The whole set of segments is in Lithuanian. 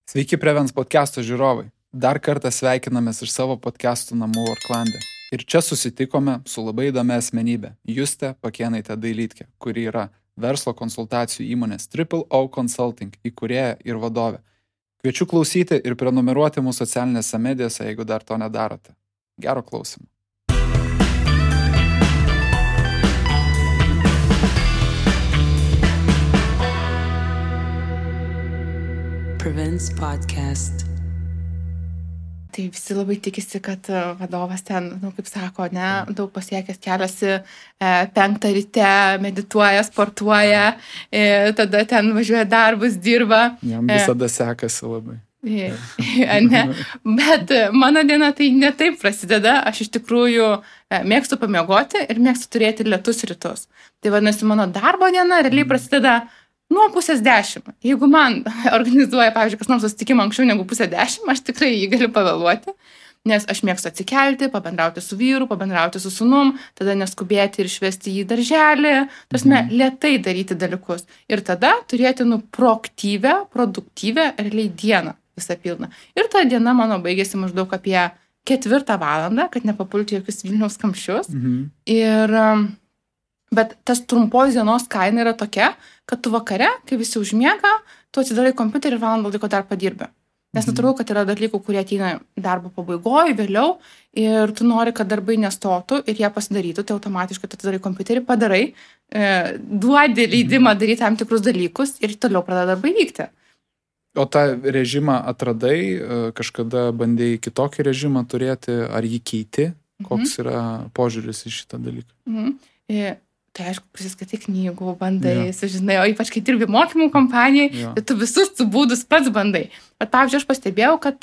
Sveiki Prevens podcast'o žiūrovai. Dar kartą sveikinamės iš savo podcast'ų namų Orklande. Ir čia susitikome su labai įdomia asmenybė - Juste Pakėnaitė Dailytkė, kuri yra verslo konsultacijų įmonės Triple O Consulting įkūrėja ir vadovė. Kviečiu klausyti ir prenumeruoti mūsų socialinėse medijose, jeigu dar to nedarote. Gero klausimo. Prevents podcast. Tai visi labai tikisi, kad vadovas ten, kaip sako, daug pasiekęs keliasi 5 ryte, medituoja, sportuoja, tada ten važiuoja darbus, dirba. Jam visada sekasi labai. Ne. Bet mano diena tai ne taip prasideda. Aš iš tikrųjų mėgstu pamiegoti ir mėgstu turėti lėtus rytus. Tai vadinasi, mano darbo diena realiai prasideda nuo 9:30. Jeigu man organizuoja, pavyzdžiui, kas nors susitikimą anksčiau negu 9:30, aš tikrai jį galiu pavėluoti, nes aš mėgstu atsikelti, pabendrauti su vyru, pabendrauti su sūnum, tada neskubėti ir išvesti jį į darželį, tarsi lėtai daryti dalykus. Ir tada turėti proaktyvę, produktyvę realiai dieną visą pilną. Ir ta diena mano baigėsi maždaug apie 4 valandą, kad nepapulti jokius Vilniaus kamščius. Bet tas trumpos dienos kaina yra tokia, kad tu vakare, kai visi užmiega, tu atsidarai kompiuterį ir valandą laiko dar padirbi. Nes natūralu, kad yra dalykų, kurie ateina darbo pabaigoje, vėliau, ir tu nori, kad darbai nestotų ir jie pasidarytų, tai automatiškai tu atsidarai kompiuterį, padarai, duodi leidimą daryti tam tikrus dalykus ir toliau pradeda darbai vykti. O tą režimą atradai, kažkada bandėjai kitokį režimą turėti, ar jį keiti? Koks yra požiūris į šitą dalyką? Tai aišku, prisiskaitai knygų, bandai, sužinai, o ypač kai dirbi mokymų kompanijai, tai tu visus tų būdus pats bandai. Bet pavyzdžiui, aš pastebėjau, kad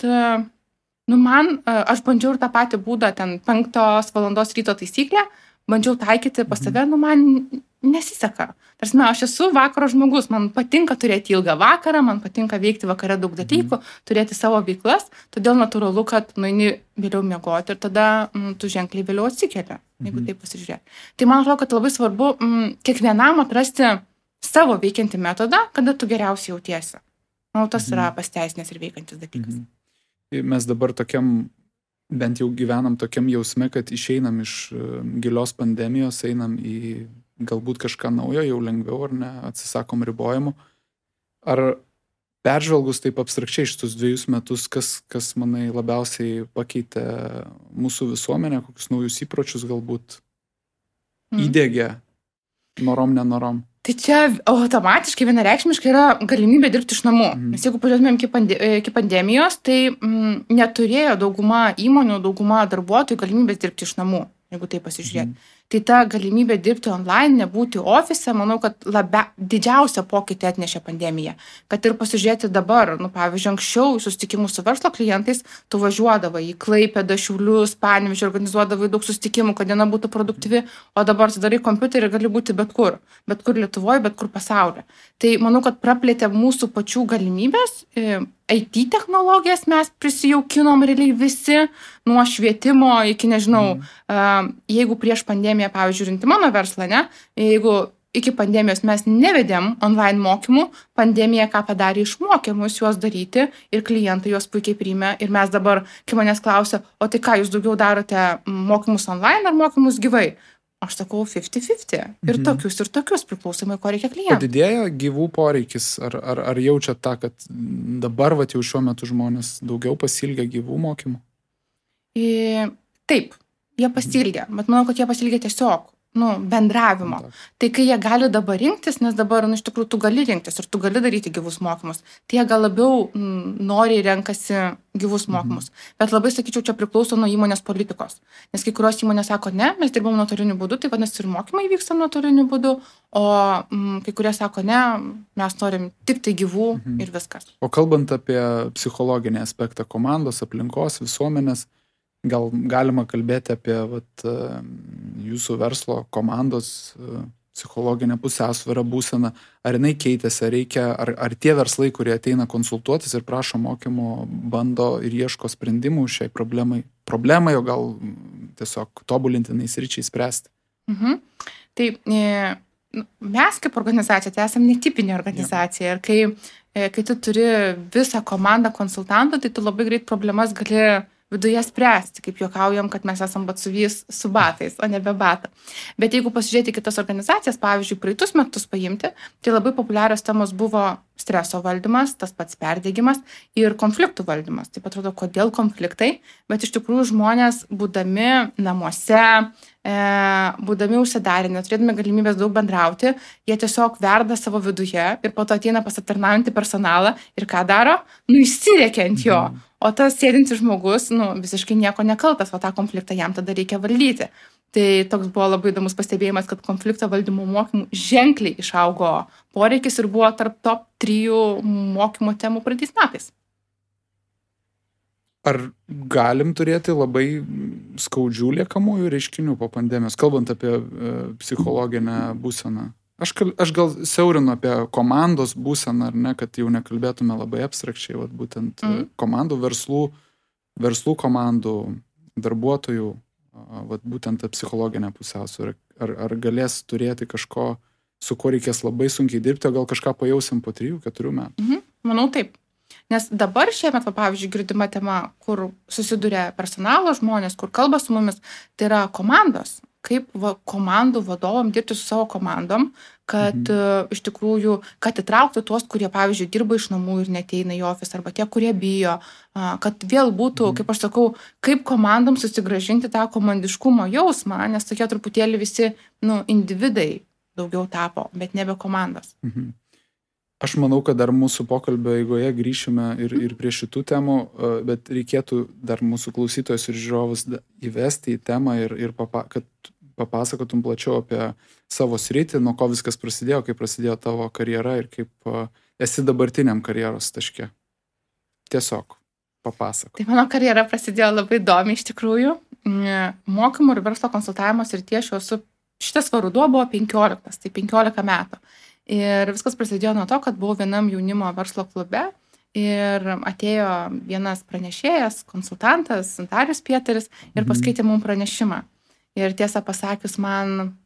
aš bandžiau ir tą patį būdą, ten 5 valandos ryto taisyklę, bandžiau taikyti pas save, man nesiseka. Tarsi, aš esu vakaro žmogus, man patinka turėti ilgą vakarą, man patinka veikti vakare daug dalykų, turėti savo veiklas, todėl natūralu, kad nueini vėliau miegoti ir tada tu ženkliai vėliau atsikeli, jeigu taip pasižiūrėti. Tai man atrodo, kad labai svarbu kiekvienam atrasti savo veikiantį metodą, kada tu geriausiai jautiesi. Manau, tas yra pasteisinęs ir veikiantis dalykas. Mes dabar tokiam, bent jau gyvenam tokiam jausme, kad išeinam iš gilios pandemijos, einam į galbūt kažką naujo, jau lengviau ar ne, atsisakom ribojimų. Ar peržvelgus taip abstrakčiai šitus 2 metus, kas manai labiausiai pakeitė mūsų visuomenę, kokius naujus įpročius galbūt įdiegė norom, nenorom? Tai čia automatiškai vienareikšmiškai yra galimybė dirbti iš namų. Nes jeigu pažiūrėtumėm iki pandemijos, tai neturėjo dauguma įmonių, dauguma darbuotojų galimybės dirbti iš namų, jeigu tai pasižiūrėti. Tai ta galimybė dirbti online, nebūti ofise, manau, kad didžiausią pokytį atnešė pandemija. Kad ir pasižiūrėti dabar, pavyzdžiui, anksčiau susitikimų su verslo klientais, tu važiuodavai į Klaipėdą, Šiaulius, Panevėžį, organizuodavai daug susitikimų, kad diena būtų produktyvi, o dabar atsidarai kompiuterį ir gali būti bet kur Lietuvoje, bet kur pasaulyje. Tai manau, kad praplėtė mūsų pačių galimybės. IT technologijas mes prisijaukinom realiai visi, nuo švietimo iki, nežinau, jeigu prieš pandemiją, pavyzdžiui, žiūrint mano verslą, jeigu iki pandemijos mes nevedėm online mokymų, pandemija ką padarė, išmokė mus juos daryti ir klientai juos puikiai priėmė. Ir mes dabar, kai manęs klausia, o tai ką jūs daugiau darote, mokymus online ar mokymus gyvai? Aš sakau 50-50. Ir tokius priklausomai, ko reikia klientui. Padidėjo gyvų poreikis? Ar jaučiat tą, kad dabar jau šiuo metu žmonės daugiau pasiilgia gyvų mokymų? Taip, jie pasiilgia. Bet manau, kad jie pasiilgia tiesiog bendravimo. Tai kai jie gali dabar rinktis, nes dabar, iš tikrųjų, tu gali rinktis ir tu gali daryti gyvus mokymus, tai jie gal labiau noriai renkasi gyvus mokymus. Bet labai, sakyčiau, čia priklauso nuo įmonės politikos. Nes kai kurios įmonės sako, ne, mes dirbam nuotoliniu būdu, tai vadinasi ir mokymai vyksta nuotoliniu būdu, o kai kurie sako, ne, mes norim tik tai gyvų ir viskas. O kalbant apie psichologinį aspektą komandos, aplinkos, visuomenės, gal galima kalbėti apie jūsų verslo komandos psichologinę pusiausvyrą, būseną, ar jinai keitėsi, ar tie verslai, kurie ateina konsultuotis ir prašo mokymo, bando ir ieško sprendimų šiai problemai, o gal tiesiog tobulintinais ryčiai spręsti? Tai mes kaip organizacija, tai esame netipinė organizacija. Ir kai tu turi visą komandą konsultantų, tai tu labai greit problemas gali viduje spręsti, kaip juokaujam, kad mes esam batsuvys su batais, o ne be batą. Bet jeigu pasižiūrėti kitas organizacijas, pavyzdžiui, praeitus metus paimti, tai labai populiarios temos buvo streso valdymas, tas pats perdegimas ir konfliktų valdymas. Taip atrodo, kodėl konfliktai, bet iš tikrųjų žmonės, būdami namuose, būdami užsidarę, neturėdami galimybės daug bendrauti, jie tiesiog verda savo viduje ir po to ateina pas aptarnaujantį personalą ir ką daro? Įsirėkia ant jo. O tas sėdintis žmogus, visiškai nieko nekaltas, o tą konfliktą jam tada reikia valdyti. Tai toks buvo labai įdomus pastebėjimas, kad konflikto valdymo mokymų ženkliai išaugo poreikis ir buvo tarp top 3 mokymo temų praeitais metais. Ar galim turėti labai skaudžių liekamųjų reiškinių po pandemijos, kalbant apie psichologinę būseną? Aš gal siaurinu apie komandos būseną, ar ne, kad jau nekalbėtume labai abstrakčiai, būtent komandų, verslų komandų, darbuotojų, būtent psichologinę pusiausvyrą. Ar galės turėti kažko, su kuo reikės labai sunkiai dirbti, o gal kažką pajausim po 3-4 metų? Manau taip. Nes dabar šiemet, pavyzdžiui, girdima tema, kur susiduria personalo žmonės, kur kalba su mumis, tai yra komandos. Kaip komandų vadovam dirbti su savo komandom, kad iš tikrųjų, kad įtrauktų tuos, kurie, pavyzdžiui, dirba iš namų ir neteina į ofisą, arba tie, kurie bijo, kad vėl būtų, kaip aš sakau, kaip komandom susigrąžinti tą komandiškumo jausmą, nes tokie truputėlį visi, individai daugiau tapo, bet nebe komandos. Aš manau, kad dar mūsų pokalbio eigoje grįšime ir prie šitų temų, bet reikėtų dar mūsų klausytojus ir žiūrovus įvesti į temą ir kad papasakotum plačiau apie savo sritį, nuo ko viskas prasidėjo, kaip prasidėjo tavo karjera ir kaip esi dabartiniam karjeros taške. Tiesiog papasakok. Tai mano karjera prasidėjo labai įdomiai iš tikrųjų. Mokymų ir verslo konsultavimo srityje šitas ruduo buvo 15, tai 15 metų. Ir viskas prasidėjo nuo to, kad buvau vienam jaunimo verslo klube ir atėjo vienas pranešėjas, konsultantas, Darius Pieteris ir paskaitė mums pranešimą. Ir tiesą pasakius,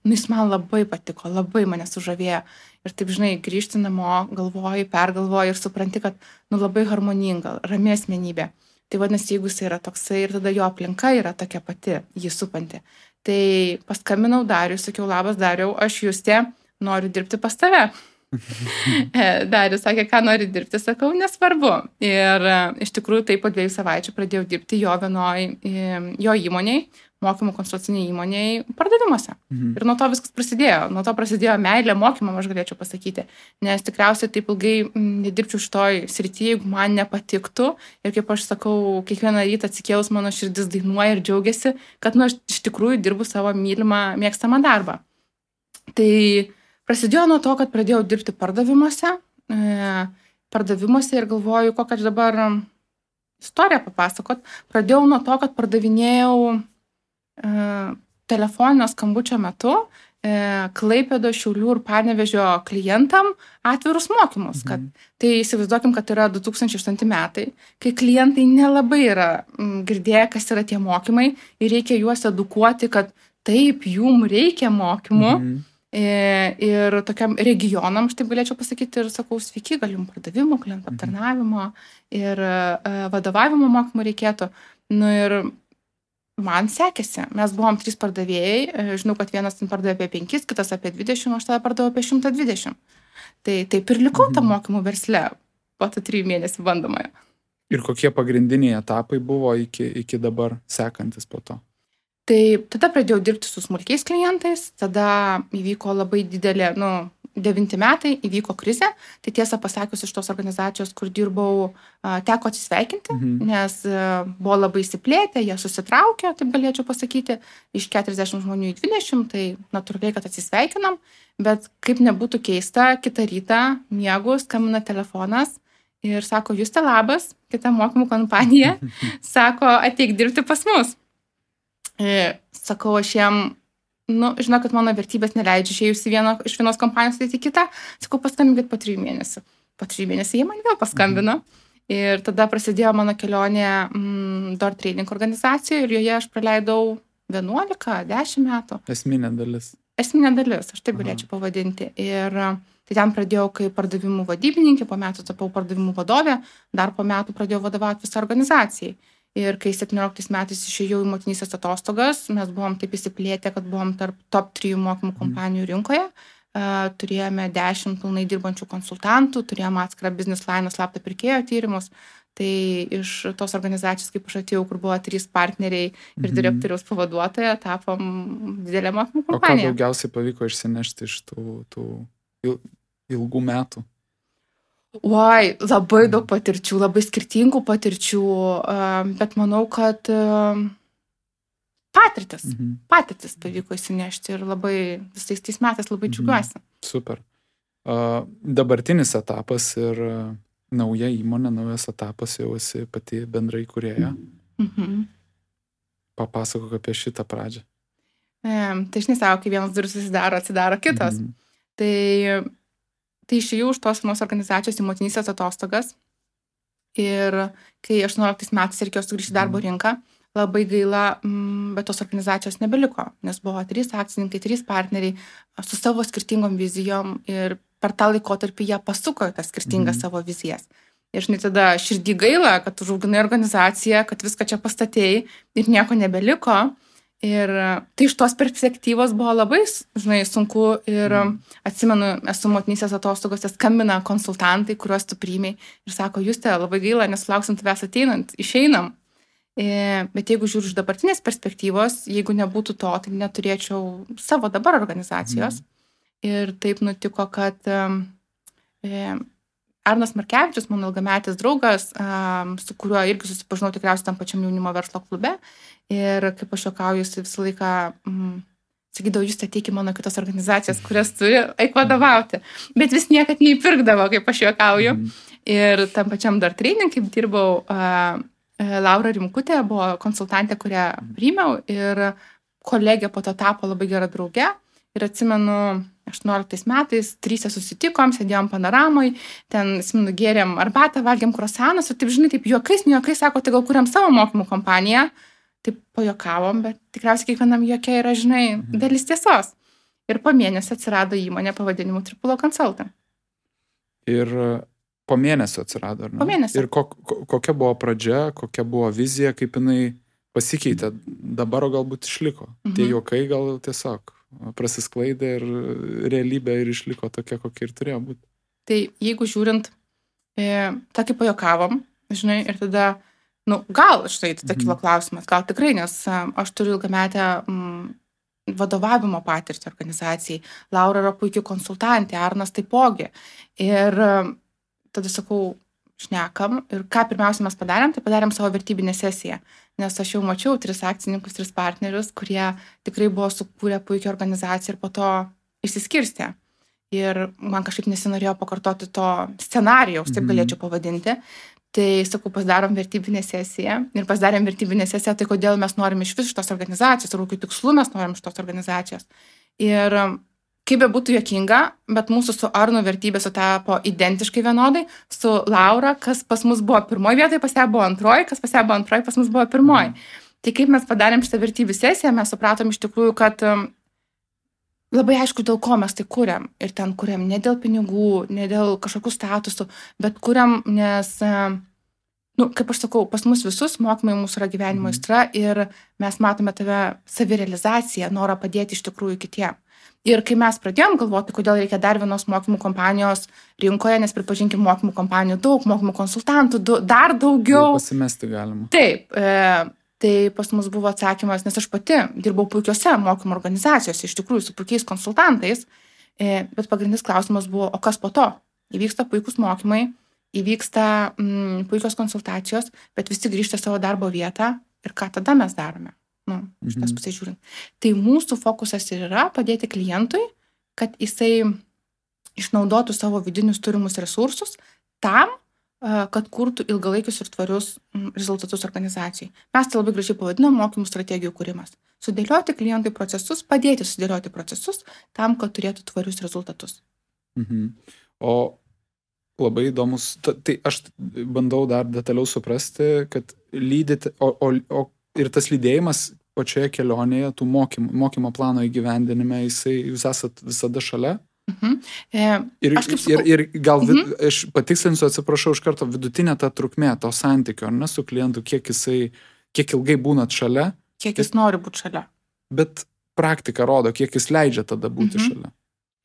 jis man labai patiko, labai mane sužavėjo. Ir taip, grįžti namo, pergalvoji ir supranti, kad labai harmoninga, rami asmenybė. Tai vadinasi, jeigu jis yra toksai ir tada jo aplinka yra tokia pati, jį supanti. Tai paskambinau Dariui, sakiau, labas Dariau, aš Justė, noriu dirbti pas tave. Darius sakė, ką nori dirbti, sakau, nesvarbu. Ir iš tikrųjų tai po 2 savaičių pradėjau dirbti jo įmoniai, mokymų konsultaciniai įmoniai pardavimuose. Ir nuo to viskas prasidėjo. Nuo to prasidėjo meilė mokymam, aš galėčiau pasakyti. Nes tikriausiai taip ilgai nedirbčiau šitoj srityje, jeigu man nepatiktų. Ir kaip aš sakau, kiekvieną rytą atsikėlus mano širdis dainuoja ir džiaugiasi, kad aš iš tikrųjų dirbu savo mylimą, mėgstamą darbą. Tai prasidėjo nuo to, kad pradėjau dirbti pardavimuose ir galvoju, kokią dabar istoriją papasakot. Pradėjau nuo to, kad pardavinėjau telefoninio skambučio metu Klaipėdos, Šiaulių ir Panevėžio klientam atvirus mokymus. Tai įsivaizduokim, kad yra 2008 metai, kai klientai nelabai yra girdėję, kas yra tie mokymai ir reikia juos edukuoti, kad taip, jum reikia mokymų. Ir tokiam regionam, aš taip galėčiau pasakyti, ir sakau, sveiki, gal jums pardavimo, klientų aptarnavimo ir vadovavimo mokymų reikėtų. Ir man sekėsi. Mes buvom 3 pardavėjai, žinau, kad vienas pardavė apie 5, kitas apie 20, aš tada pardavau apie 120. Tai taip ir likau tą mokymų versle po 3 mėnesių bandomojo. Ir kokie pagrindiniai etapai buvo iki dabar sekantis po to? Tai tada pradėjau dirbti su smulkiais klientais, tada įvyko labai didelė, 9 metai, įvyko krizė, tai tiesą pasakius iš tos organizacijos, kur dirbau, teko atsisveikinti, nes buvo labai įsiplėtę, jie susitraukė, taip galėčiau pasakyti, iš 40 žmonių į 20, tai natūraliai, kad atsisveikinam, bet kaip nebūtų keista, kitą rytą miegu, skambina telefonas ir sako, Justė, labas, kita mokymų kompanija, sako, ateik dirbti pas mus. Sakau, aš jiem, žinau, kad mano vertybės neleidžia išėjus iš vienos kompanijos į kitą, sakau, paskambinkit po 3 mėnesių. Po 3 mėnesių jie man vėl paskambino ir tada prasidėjo mano kelionė Door Training organizacijoje ir joje aš praleidau 11-10 metų. Esminė dalis. esminė dalis, aš taip galėčiau pavadinti. Ir tai ten pradėjau kaip pardavimų vadybininkė, po metų tapau pardavimų vadovė, dar po metų pradėjau vadovauti visą organizacijai. Ir kai 17 metais išėjau į motinystės atostogas, mes buvom taip įsiplėtę, kad buvom tarp top 3 mokymų kompanijų rinkoje. Turėjome 10 pilnai dirbančių konsultantų, turėjome atskirą business line slaptą pirkėjo tyrimus. Tai iš tos organizacijos, kaip aš atėjau, kur buvo 3 partneriai ir direktoriaus pavaduotoja, tapom didelę mokymų kompaniją. O ką daugiausiai pavyko išsinešti iš tų ilgų metų? Oi, labai daug patirčių, labai skirtingų patirčių, bet manau, kad patirtis pavyko įsinešti ir labai visais tais metais labai džiugiuosi. Super. Dabartinis etapas ir nauja įmonė, naujas etapas, jau esi pati bendrai įkūrėja. Papasakok apie šitą pradžią. Tai žinai, savo, kai vienas duris atsidaro kitos. Tai išėjau už tos vienos organizacijos į motinystės atostogas ir kai 18 metais reikėjo sugrįžti darbo rinką, labai gaila, bet tos organizacijos nebeliko, nes buvo 3 akcininkai, 3 partneriai su savo skirtingom vizijom ir per tą laikotarpį jie pasuko į tas skirtingas savo vizijas. Ir žinai, tada širdį gaila, kad užauginai organizaciją, kad viską čia pastatėjai ir nieko nebeliko. Ir tai iš tos perspektyvos buvo labai, žinai, sunku ir atsimenu, esu motinystės atostogose, skambina konsultantai, kuriuos tu priėmei ir sako, Juste, labai gaila, nesulauksim tavęs ateinant, išeinam. Bet jeigu žiūriu iš dabartinės perspektyvos, jeigu nebūtų to, tai neturėčiau savo dabar organizacijos. Ir taip nutiko, kad Arnas Markevičius, mano ilgametis draugas, su kuriuo irgi susipažinau tikriausiai tam pačiam jaunimo verslo klube. Ir kaip aš juokauju, jis visą laiką sakydavo, Juste, ateik į mano kitas organizacijas, kurias turi, eik vadovauti. Bet vis niekad neįpirkdavo, kaip aš juokauju. Ir tam pačiam dar training, kaip dirbau, Laura Rimkutė buvo konsultantė, kurią priėmiau ir kolegė po to tapo labai gera drauge. Ir atsimenu, 18 metais 3 susitikom, sėdėjom panoramoj, ten gėrėm arbatą, valgėm kruasanus ir taip, žinai, taip juokais, sako, tai gal kuriam savo mokymų kompaniją. Taip pajuokavom, bet tikriausiai kiekvienam juokia yra, žinai, dalis tiesos. Ir po mėnesio atsirado įmonė pavadinimu Tripulo Consulting. Ir po mėnesio atsirado, ar ne? Po mėnesio. Ir kokia buvo pradžia, kokia buvo vizija, kaip jinai pasikeitė, dabar galbūt išliko. Tie juokai gal tiesiog prasisklaidė ir realybė ir išliko tokia, kokia ir turėjo būti. Tai jeigu žiūrint, tokį pajuokavom, žinai, ir tada, gal, štai, tada kilo klausimas, gal tikrai, nes aš turiu ilgametę vadovavimo patirtį organizacijai, Laura yra puikiai konsultantė, Arnas taipogi. Ir tada sakau, šnekam ir ką pirmiausia mes padarėm, tai padarėm savo vertybinę sesiją, nes aš jau mačiau 3 akcininkus, 3 partnerius, kurie tikrai buvo sukūrę puikią organizaciją ir po to išsiskirstė. Ir man kažkaip nesinorėjo pakartoti to scenarijaus, taip galėčiau pavadinti. Tai, sakau, pasidarom vertybinę sesiją ir pasidarėm vertybinę sesiją, tai kodėl mes norim iš vis šitos organizacijos, ir kokių tikslų mes norim šitos organizacijos. Ir kaip be būtų juokinga, bet mūsų su Arnu vertybės sutapo identiškai vienodai, su Laura, kas pas mus buvo pirmoji vietoje, pas ją buvo antroji, kas pas ją buvo antroji, pas mus buvo pirmoji. Tai kaip mes padarėm šitą vertybių sesiją, mes supratom iš tikrųjų, kad labai aišku, dėl ko mes tai kuriam. Ir ten kuriam ne dėl pinigų, ne dėl kažkokių statusų, bet kuriam, nes, kaip aš sakau, pas mus visus mokymai mūsų yra gyvenimo aistra ir mes matome tave savirealizaciją, norą padėti iš tikrųjų kitiem. Ir kai mes pradėjom galvoti, kodėl reikia dar vienos mokymų kompanijos rinkoje, nes pripažinkim mokymų kompanijų daug, mokymų konsultantų dar daugiau. Pasimesti galima. Taip, tai pas mus buvo atsakymas, nes aš pati dirbau puikiose mokymų organizacijose, iš tikrųjų su puikiais konsultantais, bet pagrindinis klausimas buvo, o kas po to? Įvyksta puikus mokymai, įvyksta puikios konsultacijos, bet visi grįžta savo darbo vietą ir ką tada mes darome? Iš tos pusės žiūrint. Tai mūsų fokusas ir yra padėti klientui, kad jisai išnaudotų savo vidinius turimus resursus tam, kad kurtų ilgalaikius ir tvarius rezultatus organizacijai. Mes tai labai gražiai pavadinam mokymų strategijų kūrimas. Sudėlioti klientui procesus, padėti sudėlioti procesus tam, kad turėtų tvarius rezultatus. O labai įdomus, tai aš bandau dar detaliau suprasti, kad lydėti, ir tas lydėjimas pačioje kelionėje, tų mokymo plano įgyvendinime, jūs esat visada šalia? Ir gal, aš patikslinsiu, atsiprašau iš karto, vidutinė ta trukmė to santykio, ar ne, su klientu, kiek ilgai būnat šalia? Kiek jis nori būti šalia. Bet praktika rodo, kiek jis leidžia tada būti šalia.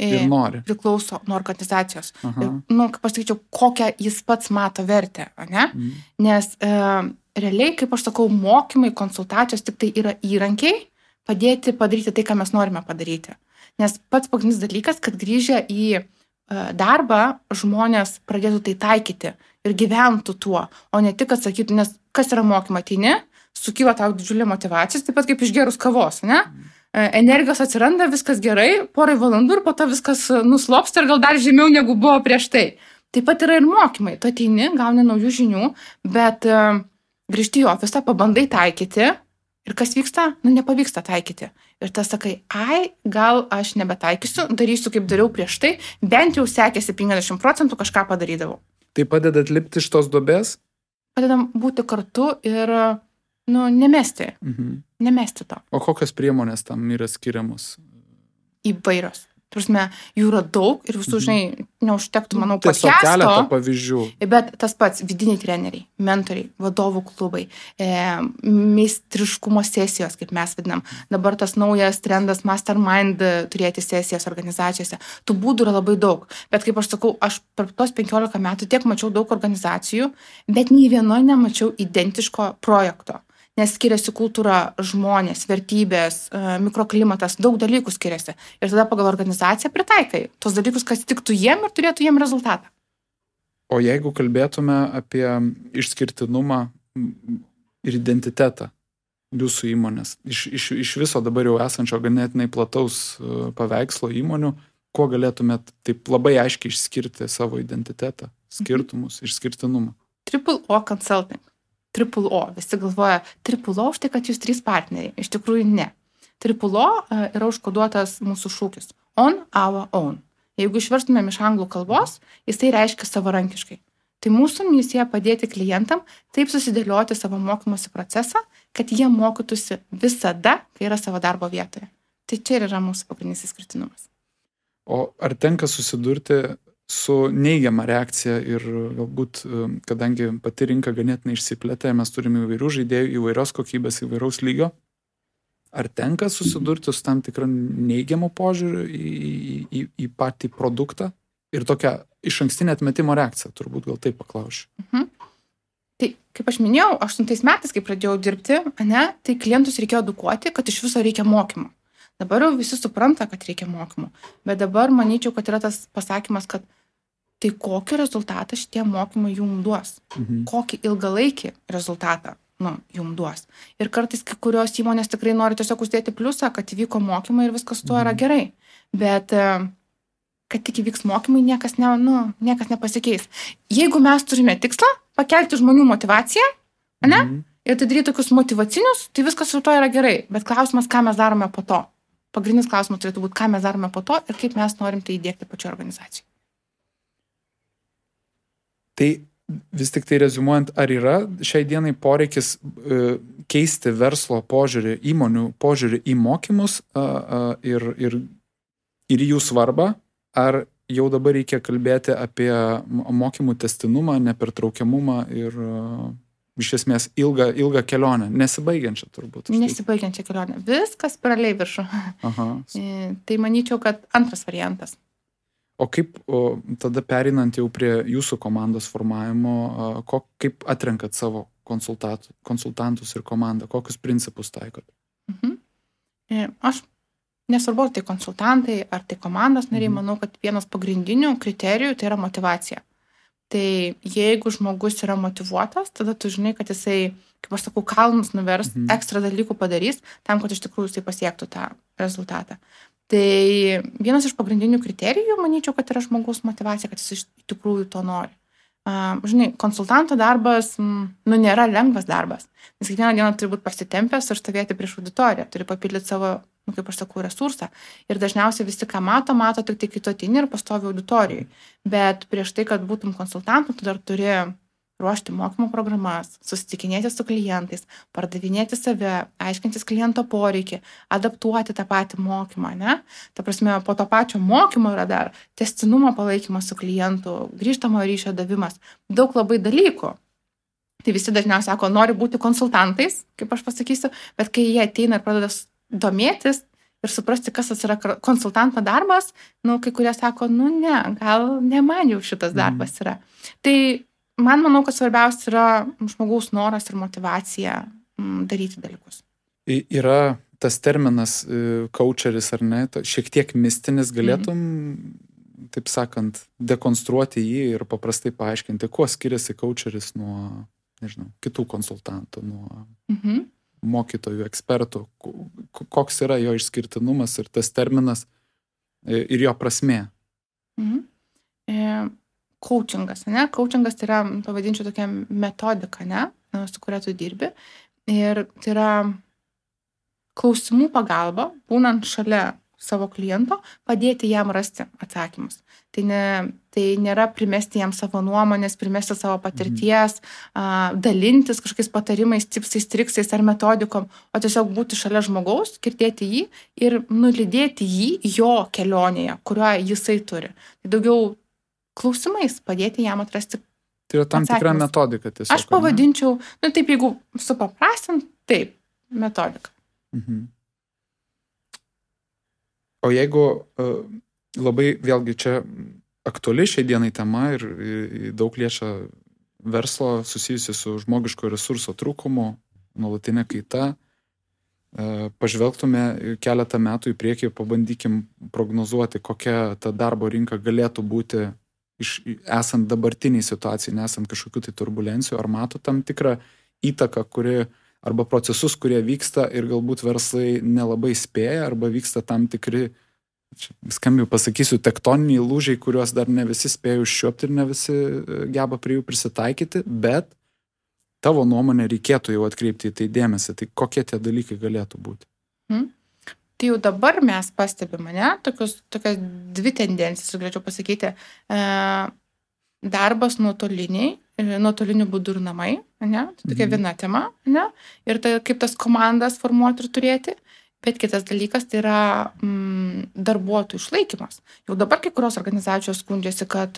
Ir nori. Priklauso nuo organizacijos. Kaip pasakyčiau, kokią jis pats mato vertę, ne? Nes realiai, kaip aš sakau, mokymai, konsultacijos tik tai yra įrankiai padėti padaryti tai, ką mes norime padaryti. Nes pats pagrindinis dalykas, kad grįžę į darbą žmonės pradėtų tai taikyti ir gyventų tuo, o ne tik atsakytų, nes kas yra mokymai, ateini, sukyla tau didžiulė motyvacija, taip pat kaip išgerus kavos, ne? Energijos atsiranda, viskas gerai, porai valandų ir po to viskas nuslopsta ir gal dar žemiau negu buvo prieš tai. Taip pat yra ir mokymai. Tu ateini, gauni naujų žinių, bet grįžti į ofisą, pabandai taikyti ir kas vyksta? Nepavyksta taikyti. Ir tas sakai, gal aš nebetaikysiu, darysiu kaip dariau prieš tai, bent jau sekėsi 50% kažką padarydavau. Tai padeda atlipti iš tos duobės? Padedam būti kartu ir nemesti. Nemesti to. O kokios priemonės tam yra skiriamos? Įvairios. Prasme, jų yra daug ir visų, neužtektų, manau, podcast'o. Tiesiog keletą pavyzdžių. Bet tas pats vidiniai treneriai, mentoriai, vadovų klubai, meistriškumo sesijos, kaip mes vadinam. Dabar tas naujas trendas mastermind turėti sesijas organizacijose. Tų būdų yra labai daug. Bet kaip aš sakau, aš per tos 15 metų tiek mačiau daug organizacijų, bet nei vienoje nemačiau identiško projekto. Nes skiriasi kultūra, žmonės, vertybės, mikroklimatas, daug dalykų skiriasi. Ir tada pagal organizaciją pritaikai tos dalykus, kas tiktų jiem ir turėtų jiem rezultatą. O jeigu kalbėtume apie išskirtinumą ir identitetą jūsų įmonės, iš viso dabar jau esančio ganėtinai plataus paveikslo įmonių, kuo galėtumėt taip labai aiškiai išskirti savo identitetą, skirtumus, išskirtinumą? Triple O Consulting. Triple O. Visi galvoja, Triple O už tai, kad jūs 3 partneriai. Iš tikrųjų ne. Triple O yra užkoduotas mūsų šūkis. On our own. Jeigu išverstumėm iš anglų kalbos, jisai reiškia savarankiškai. Tai mūsų misija padėti klientam taip susidėlioti savo mokymosi procesą, kad jie mokytųsi visada, kai yra savo darbo vietoje. Tai čia ir yra mūsų pagrindinis išskirtinumas. O ar tenka susidurti su neigiama reakcija ir galbūt, kadangi pati rinka ganėtinai išsiplėtė, mes turime įvairių žaidėjų, įvairios kokybės, įvairaus lygio. Ar tenka susidurti su tam tikrą neigiamą požiūrį į patį produktą ir tokią išankstinę atmetimo reakciją, turbūt gal taip paklausiu. Tai, kaip aš minėjau, 8 metais, kai pradėjau dirbti, tai klientus reikėjo edukuoti, kad iš viso reikia mokymų. Dabar jau visi supranta, kad reikia mokymų, bet dabar manyčiau, kad yra tas pasakymas, kad tai kokį rezultatą šitie mokymai jums duos, kokį ilgalaikį rezultatą jums duos. Ir kartais kai kurios įmonės tikrai nori tiesiog uždėti pliusą, kad įvyko mokymai ir viskas tuo yra gerai, bet kad tik įvyks mokymai, niekas nepasikeis. Jeigu mes turime tikslą pakelti žmonių motyvaciją, ir tai daryti tokius motyvacinius, tai viskas su to yra gerai, bet klausimas, ką mes darome po to. Pagrindinis klausimas turėtų būti, ką mes darome po to ir kaip mes norim tai įdiegti pačioje organizacijoje. Tai vis tik tai reziumuojant, ar yra šiai dienai poreikis keisti verslo požiūrį, įmonių požiūrį į mokymus ir jų svarbą, ar jau dabar reikia kalbėti apie mokymų testinumą, nepertraukiamumą ir iš esmės ilgą kelionę, nesibaigiančią turbūt. Nesibaigiančią kelionę. Viskas paraliai viršų. Tai manyčiau, kad antras variantas. O kaip tada perinant jau prie jūsų komandos formavimo, kaip atrenkat savo konsultantus ir komandą, kokius principus taikot? Aš nesvarbu, ar tai konsultantai, ar tai komandos nariai, manau, kad vienas pagrindinių kriterijų tai yra motyvacija. Tai jeigu žmogus yra motyvuotas, tada tu žinai, kad jisai, kaip aš sakau, kalnus nuvers, ekstra dalykų padarys, tam, kad iš tikrųjų jisai pasiektų tą rezultatą. Tai vienas iš pagrindinių kriterijų, manyčiau, kad yra žmogaus motyvacija, kad jis iš tikrųjų to nori. Žinai, konsultanto darbas, nėra lengvas darbas, nes kiekvieną dieną turi būti pasitempęs ir stovėti prieš auditoriją, turi papildyti savo, kaip aš sakau, resursą. Ir dažniausiai visi, ką mato tik tai kai tu ateini ir pastovi auditorijai. Bet prieš tai, kad būtum konsultantu, tu dar turi ruošti mokymo programas, susitikinėti su klientais, pardavinėti save, aiškintis kliento poreikį, adaptuoti tą patį mokymą, ne? Ta prasme, po to pačio mokymo yra dar tęstinumo palaikymas su klientu, grįžtamo ryšio davimas, daug labai dalykų. Tai visi dažniausiai sako, nori būti konsultantais, kaip aš pasakysiu, bet kai jie ateina ir pradeda domėtis ir suprasti, kas yra konsultanto darbas, kai kurie sako, ne, gal ne man jau šitas darbas yra. Tai man manau, kad svarbiausia yra žmogaus noras ir motyvacija daryti dalykus. Yra tas terminas coacheris ar ne, šiek tiek mistinis, galėtum, taip sakant, dekonstruoti jį ir paprastai paaiškinti, kuo skiriasi coacheris nuo, nežinau, kitų konsultantų, nuo mokytojų, ekspertų, koks yra jo išskirtinumas ir tas terminas ir jo prasmė. Coachingas, ne? Coachingas tai yra, pavadinčiau, tokia metodika, ne? Su kuria tu dirbi. Ir tai yra klausimų pagalba, būnant šalia savo kliento, padėti jam rasti atsakymus. Tai nėra primesti jam savo nuomonės, primesti savo patirties, dalintis kažkokiais patarimais, tipsais, triksais ar metodikom, o tiesiog būti šalia žmogaus, girdėti jį ir nulydėti jį jo kelionėje, kuriuo jisai turi. Tai daugiau klausimais padėti jam atrasti atsakymus. Tai yra tam tikra metodika tiesiog. Aš pavadinčiau, taip, jeigu supaprastint, taip, metodika. O jeigu labai, vėlgi, čia aktuali šiai dienai tema ir daug liečia verslo susijusi su žmogiško resurso trūkumu, nuolatinė kaita, pažvelgtume keletą metų į priekį, pabandykim prognozuoti, kokia ta darbo rinka galėtų būti esant dabartiniai situacijai, nesant kažkokių tai turbulencijų, ar mato tam tikrą įtaką, arba procesus, kurie vyksta ir galbūt verslai nelabai spėja, arba vyksta tam tikri, skambiai pasakysiu, tektoniniai lūžiai, kuriuos dar ne visi spėja užčiuopti ir ne visi geba prie jų prisitaikyti, bet tavo nuomonė reikėtų jau atkreipti į tai dėmesį. Tai kokie tie dalykai galėtų būti? Tai jau dabar mes pastebime, tokias dvi tendencijas, galėčiau pasakyti. Darbas nuotoliniu būdu ir namai, ne? Tai tokia viena tema, ne? Ir tai kaip tas komandas formuoti ir turėti, bet kitas dalykas tai yra darbuotojų išlaikymas. Jau dabar kai kurios organizacijos skundžiasi, kad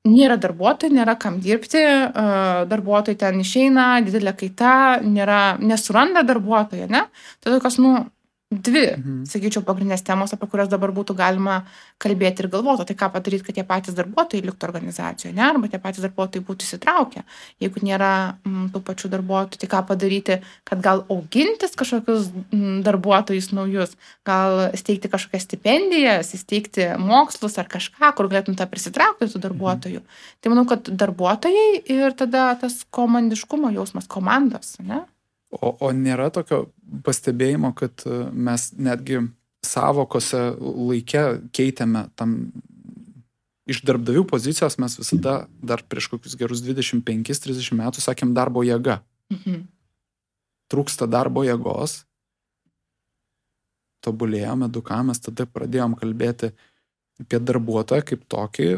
nėra darbuotojų, nėra kam dirbti, darbuotojai ten išeina, didelė kaita, nesuranda darbuotojo, ne? Tai tokios, dvi, sakyčiau, pagrindinės temos, apie kurias dabar būtų galima kalbėti ir galvoti. Tai ką padaryti, kad tie patys darbuotojai liktų organizacijoje, ne? Arba tie patys darbuotojai būtų įsitraukę. Jeigu nėra tų pačių darbuotojų, tai ką padaryti, kad gal augintis kažkokius darbuotojus naujus, gal steigti kažkokias stipendijas, įsteigti mokslus ar kažką, kur galėtum tą prisitraukti tų darbuotojų. Tai manau, kad darbuotojai ir tada tas komandiškumo jausmas, komandos, ne? O nėra tokio pastebėjimo, kad mes netgi savokose laike keitėme tam iš darbdavių pozicijos, mes visada dar prieš kokius gerus 25-30 metų sakėm darbo jėga. Trūksta darbo jėgos, tobulėjom, edukavomės, tada pradėjom kalbėti apie darbuotoją kaip tokį,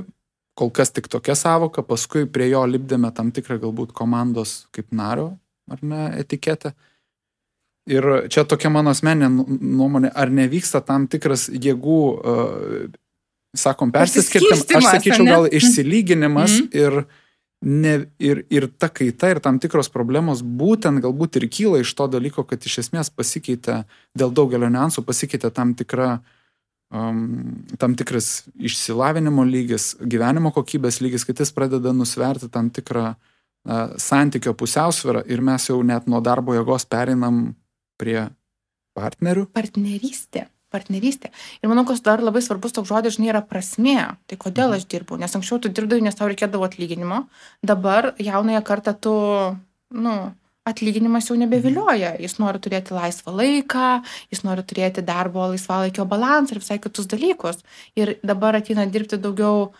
kol kas tik tokia savoka, paskui prie jo lipdėme tam tikrą galbūt komandos kaip nario, ar ne, etiketę. Ir čia tokia mano asmeninė nuomonė, ar nevyksta tam tikras jėgų, sakom, persiskirtim, aš sakyčiau, gal išsilyginimas ir ta kaita ir tam tikros problemos būtent galbūt ir kyla iš to dalyko, kad iš esmės pasikeitė, dėl daugelio niuansų pasikeitė tam tikras išsilavinimo lygis, gyvenimo kokybės lygis, kad jis pradeda nusverti tam tikrą santykio pusiausvyrą ir mes jau net nuo darbo jėgos pereinam prie partnerių. Partnerystė. Ir manau, kad dar labai svarbus toks žodis, yra prasmė. Tai kodėl aš dirbau? Nes anksčiau tu dirbdavai, nes tau reikėdavo atlyginimo. Dabar jaunąją kartą tu, atlyginimas jau nebevilioja. Jis nori turėti laisvą laiką, jis nori turėti darbo laisvalaikio balansą ir visai kitus dalykus. Ir dabar ateina dirbti daugiau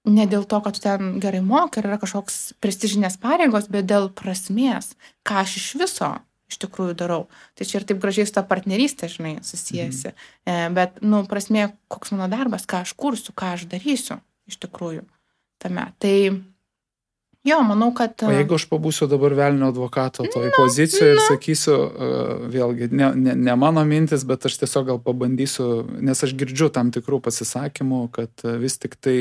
ne dėl to, kad tu ten gerai moki ir yra kažkoks prestižinės pareigos, bet dėl prasmės, ką aš iš viso iš tikrųjų darau. Tai čia ir taip gražiai su ta partnerystė, susijęsi. Bet, prasmė, koks mano darbas, ką aš kursiu, ką aš darysiu iš tikrųjų tame. Tai Jo, manau, kad... O jeigu aš pabūsiu dabar velnio advokato toj pozicijoje ir sakysiu, vėlgi, ne mano mintis, bet aš tiesiog gal pabandysiu, nes aš girdžiu tam tikrų pasisakymų, kad vis tik tai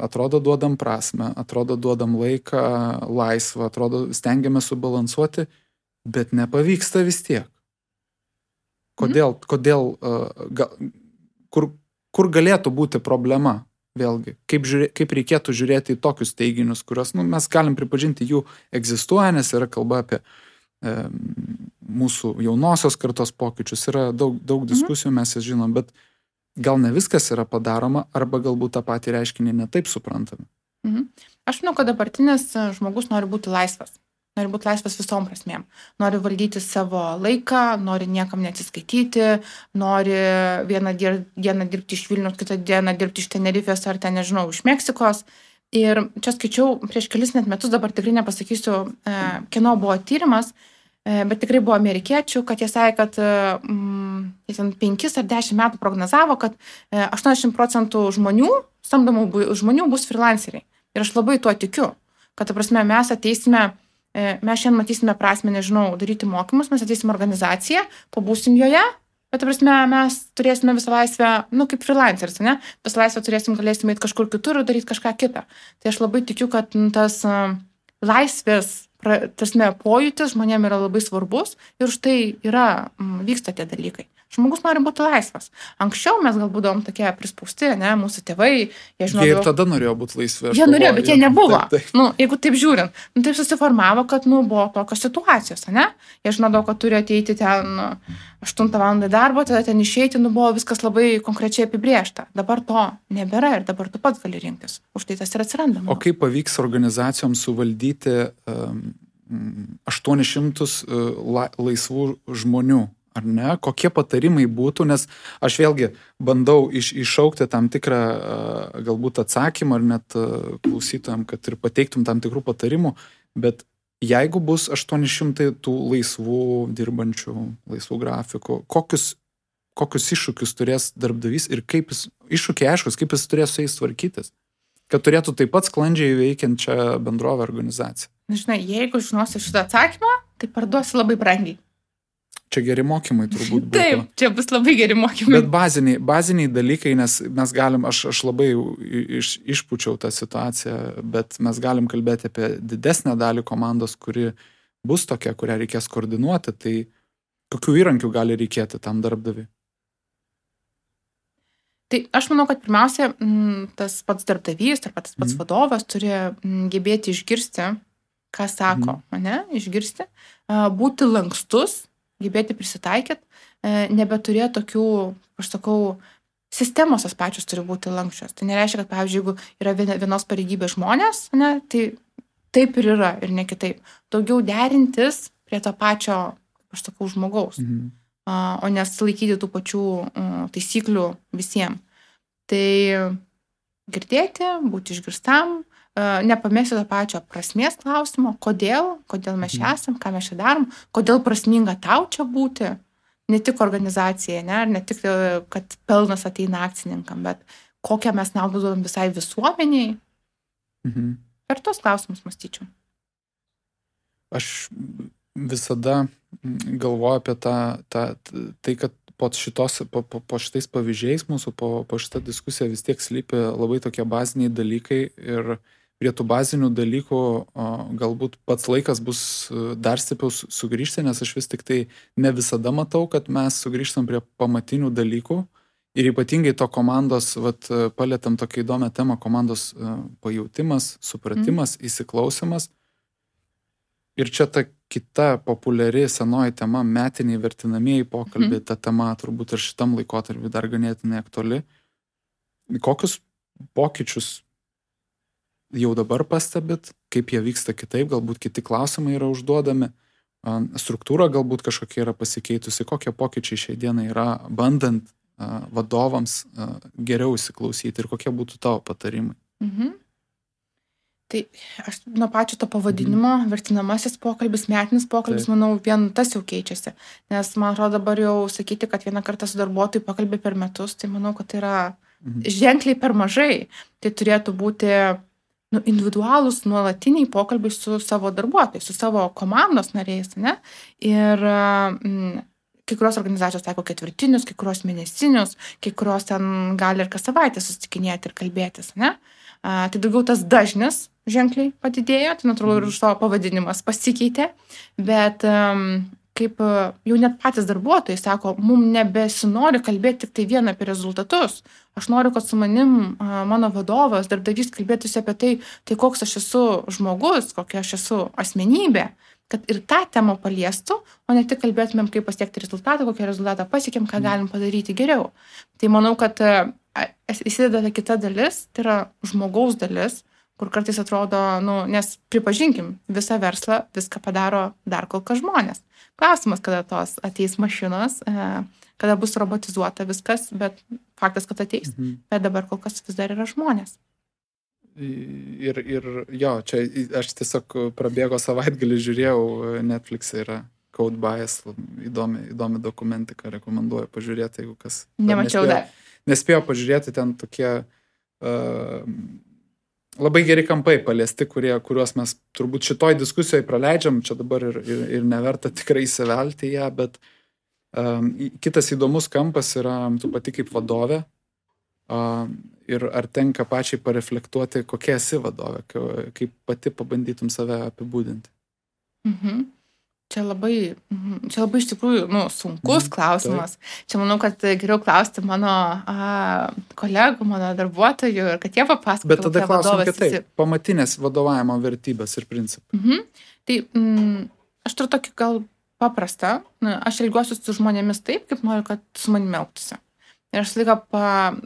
atrodo duodam prasme, atrodo duodam laiką, laisvą, atrodo stengiame subalansuoti, bet nepavyksta vis tiek. Kodėl, kur galėtų būti problema? Vėlgi, kaip reikėtų žiūrėti į tokius teiginius, kurios mes galim pripažinti, jų egzistuoja, nes yra kalba apie mūsų jaunosios kartos pokyčius, yra daug diskusijų, mes jas žinom, bet gal ne viskas yra padaroma, arba galbūt tą patį reiškinį netaip suprantame. Aš manau, kad dabartinis žmogus nori būti laisvas. Nori būti laisvas visom prasmėm. Nori valdyti savo laiką, nori niekam neatsiskaityti, nori vieną dieną dirbti iš Vilniaus, kitą dieną dirbti iš Tenerifės ar ten, nežinau, iš Meksikos. Ir čia skaičiau prieš kelis net metus, dabar tikrai nepasakysiu, kieno buvo tyrimas, bet tikrai buvo amerikiečių, kad jie sakė, kad 5 ar 10 metų prognozavo, kad 80% samdomų žmonių bus freelanceriai. Ir aš labai tuo tikiu, kad, ta prasme, mes šiandien matysime prasmę, nežinau, daryti mokymus, mes ateisim organizaciją, pabūsim joje, bet, ta prasme, mes turėsime visą laisvę, kaip freelanceris, ne? Visą laisvę galėsime eiti kažkur kitur ir daryti kažką kitą. Tai aš labai tikiu, kad tas laisvės, pojūtis žmonėm yra labai svarbus ir štai vyksta tie dalykai. Žmogus nori būti laisvas. Anksčiau mes gal būdavom tokie prispausti, ne, mūsų tėvai, jie žinodavo... Jie ir tada norėjo būti laisvi. Jie norėjo, bet jie nebuvo. Taip. Jeigu taip žiūrint, taip susiformavo, kad, buvo tokios situacijos, ne? Jie žinodavo, kad turi ateiti ten 8 valandą darbo, tada ten išeiti, buvo viskas labai konkrečiai apibrėžta. Dabar to nebėra ir dabar tu pats gali rinktis. Už tai tas ir atsiranda. O kaip pavyks organizacijoms suvaldyti 800 laisvų žmonių? Ar ne? Kokie patarimai būtų, nes aš vėlgi bandau iššaukti tam tikrą galbūt atsakymą ar net klausytojams, kad ir pateiktum tam tikrų patarimų, bet jeigu bus 800 tų laisvų dirbančių, laisvų grafikų, kokius iššūkius turės darbdavys ir iššūkiai aiškus, kaip jis turės su jais tvarkytis, kad turėtų taip pat sklandžiai veikiančią bendrovę organizaciją? Žinai, jeigu žinosi šitą atsakymą, tai parduosi labai brangiai. Čia geri mokymai turbūt būtų. Taip, čia bus labai geri mokymai. Bet baziniai dalykai, nes mes galim, aš labai išpučiau tą situaciją, bet mes galim kalbėti apie didesnę dalį komandos, kuri bus tokia, kurią reikės koordinuoti, tai kokių įrankių gali reikėti tam darbdaviui? Tai aš manau, kad pirmiausia, tas pats darbdavys, ar tas pats vadovas turi gebėti išgirsti, ką sako, išgirsti, būti lankstus, gebėti prisitaikyti, nebeturėti tokių, aš sakau, sistemos as pačios turi būti lankščios. Tai nereiškia, kad, pavyzdžiui, jeigu yra vienos pareigybės žmonės, tai taip ir yra ir ne kitaip. Daugiau derintis prie to pačio, aš sakau, žmogaus, o nesilaikyti tų pačių taisyklių visiems. Tai girdėti, būti išgirstam, nepamesti to pačio prasmės klausimo, kodėl mes čia esam, ką mes čia darom, kodėl prasminga tau čia būti, ne tik organizacijai, ne tik, kad pelnas ateina akcininkam, bet kokią mes naudą duodam visai visuomeniai. Per tos klausimus mąstyčiau. Aš visada galvoju apie tai, kad po šitais pavyzdžiais mūsų, po šitą diskusiją vis tiek slypi labai tokie baziniai dalykai ir prie tų bazinių dalykų galbūt pats laikas bus dar stipriau sugrįžti, nes aš vis tik tai ne visada matau, kad mes sugrįžtam prie pamatinių dalykų ir ypatingai to komandos, palėtam tokią įdomią temą, komandos pajautimas, supratimas, įsiklausimas. Ir čia ta kita populiari senoji tema, metiniai vertinamieji pokalbiai, ta tema turbūt ir šitam laikotarpiu dar ganėtinai aktuali. Kokius pokyčius jau dabar pastebit, kaip jie vyksta kitaip, galbūt kiti klausimai yra užduodami, struktūra galbūt kažkokia yra pasikeitusi, kokie pokyčiai šiai dienai yra, bandant vadovams geriau įsiklausyti ir kokie būtų tavo patarimai. Tai aš nuo pačio to pavadinimo, vertinamasis pokalbis, metinis pokalbis, manau, vien tas jau keičiasi. Nes man atrodo dabar jau sakyti, kad vieną kartą su darbuotojų pakalbė per metus, tai manau, kad tai yra ženkliai per mažai. Tai turėtų būti individualūs nuolatiniai pokalbiai su savo darbuotojais, su savo komandos nariais, ne? Ir kai kurios organizacijos taiko ketvirtinius, kai kurios mėnesinius, kai kurios ten gali ir kas savaitę susitikinėti ir kalbėtis, ne? Tai daugiau tas dažnis ženkliai padidėjo, tai natūralu ir už savo pavadinimas pasikeitė, bet kaip jau net patys darbuotojai sako, mums nebesinori kalbėti tik tai vien apie rezultatus. Aš noriu, kad su manim mano vadovas, darbdavys kalbėtųsi apie tai koks aš esu žmogus, kokia aš esu asmenybė, kad ir tą temą paliestų, o ne tik kalbėtumėm, kaip pasiekti rezultatą, kokią rezultatą pasiekėm, ką galim padaryti geriau. Tai manau, kad įsideda kita dalis, tai yra žmogaus dalis, kur kartais atrodo, nes pripažinkim, visą verslą viską padaro dar kol kas žmonės. Klausimas, kada tos ateis mašinos, kada bus robotizuota viskas, bet faktas, kad ateis. Bet dabar kol kas vis dar yra žmonės. Ir jo, čia aš tiesiog prabėgo savaitgalį, žiūrėjau, Netflix'e yra Code Bias, įdomi dokumentika, rekomenduoju pažiūrėti, jeigu kas. Nemačiau dar. Nespėjo pažiūrėti, ten tokie labai geri kampai paliesti, kuriuos mes turbūt šitoj diskusijoje praleidžiam, čia dabar ir neverta tikrai įsivelti į ją, bet kitas įdomus kampas yra tu pati kaip vadovė ir ar tenka pačiai pareflektuoti, kokia esi vadovė, kaip pati pabandytum save apibūdinti. Čia labai iš tikrųjų sunkus klausimas. Čia manau, kad geriau klausti mano kolegų, mano darbuotojų ir kad jie papasakotų. Bet tada klausim kitaip, pamatinės vadovavimo vertybės ir principai. Tai aš turiu tokį gal paprastą, aš elgiuosi su žmonėmis taip, kaip noriu, kad su manimi elgtųsi. Ir aš laiką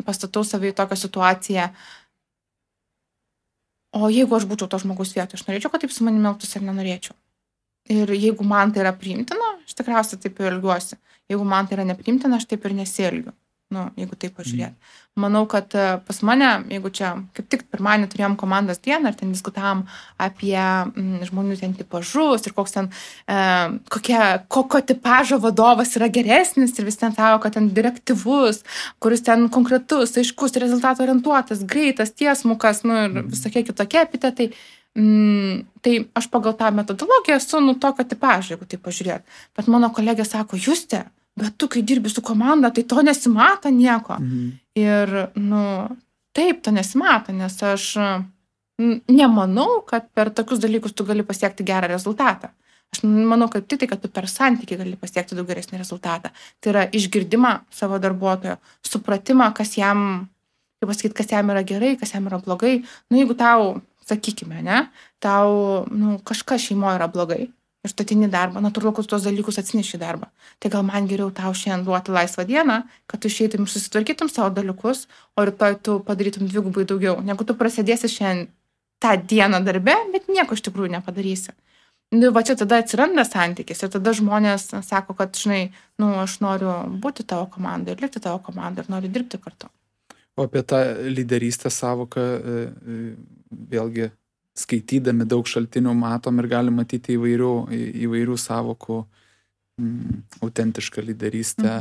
pastatau savai tokią situaciją, o jeigu aš būčiau to žmogus vietoje, aš norėčiau, kad taip su manimi elgtųsi ar nenorėčiau. Ir jeigu man tai yra priimtina, aš tikriausiai taip ir elgiuosi. Jeigu man tai yra nepriimtina, aš taip ir nesielgiu. Jeigu taip pažiūrėt. Manau, kad pas mane, jeigu čia kaip tik pirmadienį turėjom komandos dieną ir ten diskutavom apie žmonių ten tipažus ir koks ten, kokio tipažo vadovas yra geresnis ir vis ten savo, kad ten direktyvus, kuris ten konkretus, aiškus, rezultato orientuotas, greitas, tiesmukas, ir visokie kitokie epitetai. Tai aš pagal tą metodologiją esu tokio tipažo, jeigu taip pažiūrėt. Bet mano kolegė sako, Juste, bet tu, kai dirbi su komanda, tai to nesimato nieko. Ir, taip, to nesimato, nes aš nemanau, kad per tokius dalykus tu gali pasiekti gerą rezultatą. Aš manau, kad tai, kad tu per santykį gali pasiekti daug geresnį rezultatą. Tai yra išgirdimą savo darbuotojo, supratimą, kas jam yra gerai, kas jam yra blogai. Jeigu tau, sakykime, tau kažkas šeimoje yra blogai, ir tu ateini darbą, natūralu, kad tuos dalykus atsineši darbą. Tai gal man geriau tau šiandien duoti laisvą dieną, kad tu išeitum ir susitvarkytum savo dalykus, o rytoj tu padarytum dvigubai daugiau, negu tu prasidėsi šiandien tą dieną darbe, bet nieko iš tikrųjų nepadarysi. Va čia tada atsiranda santykis ir tada žmonės sako, kad, aš noriu būti tavo komandai ir likti tavo komandai ir noriu dirbti kartu. O apie tą lyderystės savoką vėlgi skaitydami daug šaltinių matom ir galim matyti įvairių savokų, autentišką lyderystę,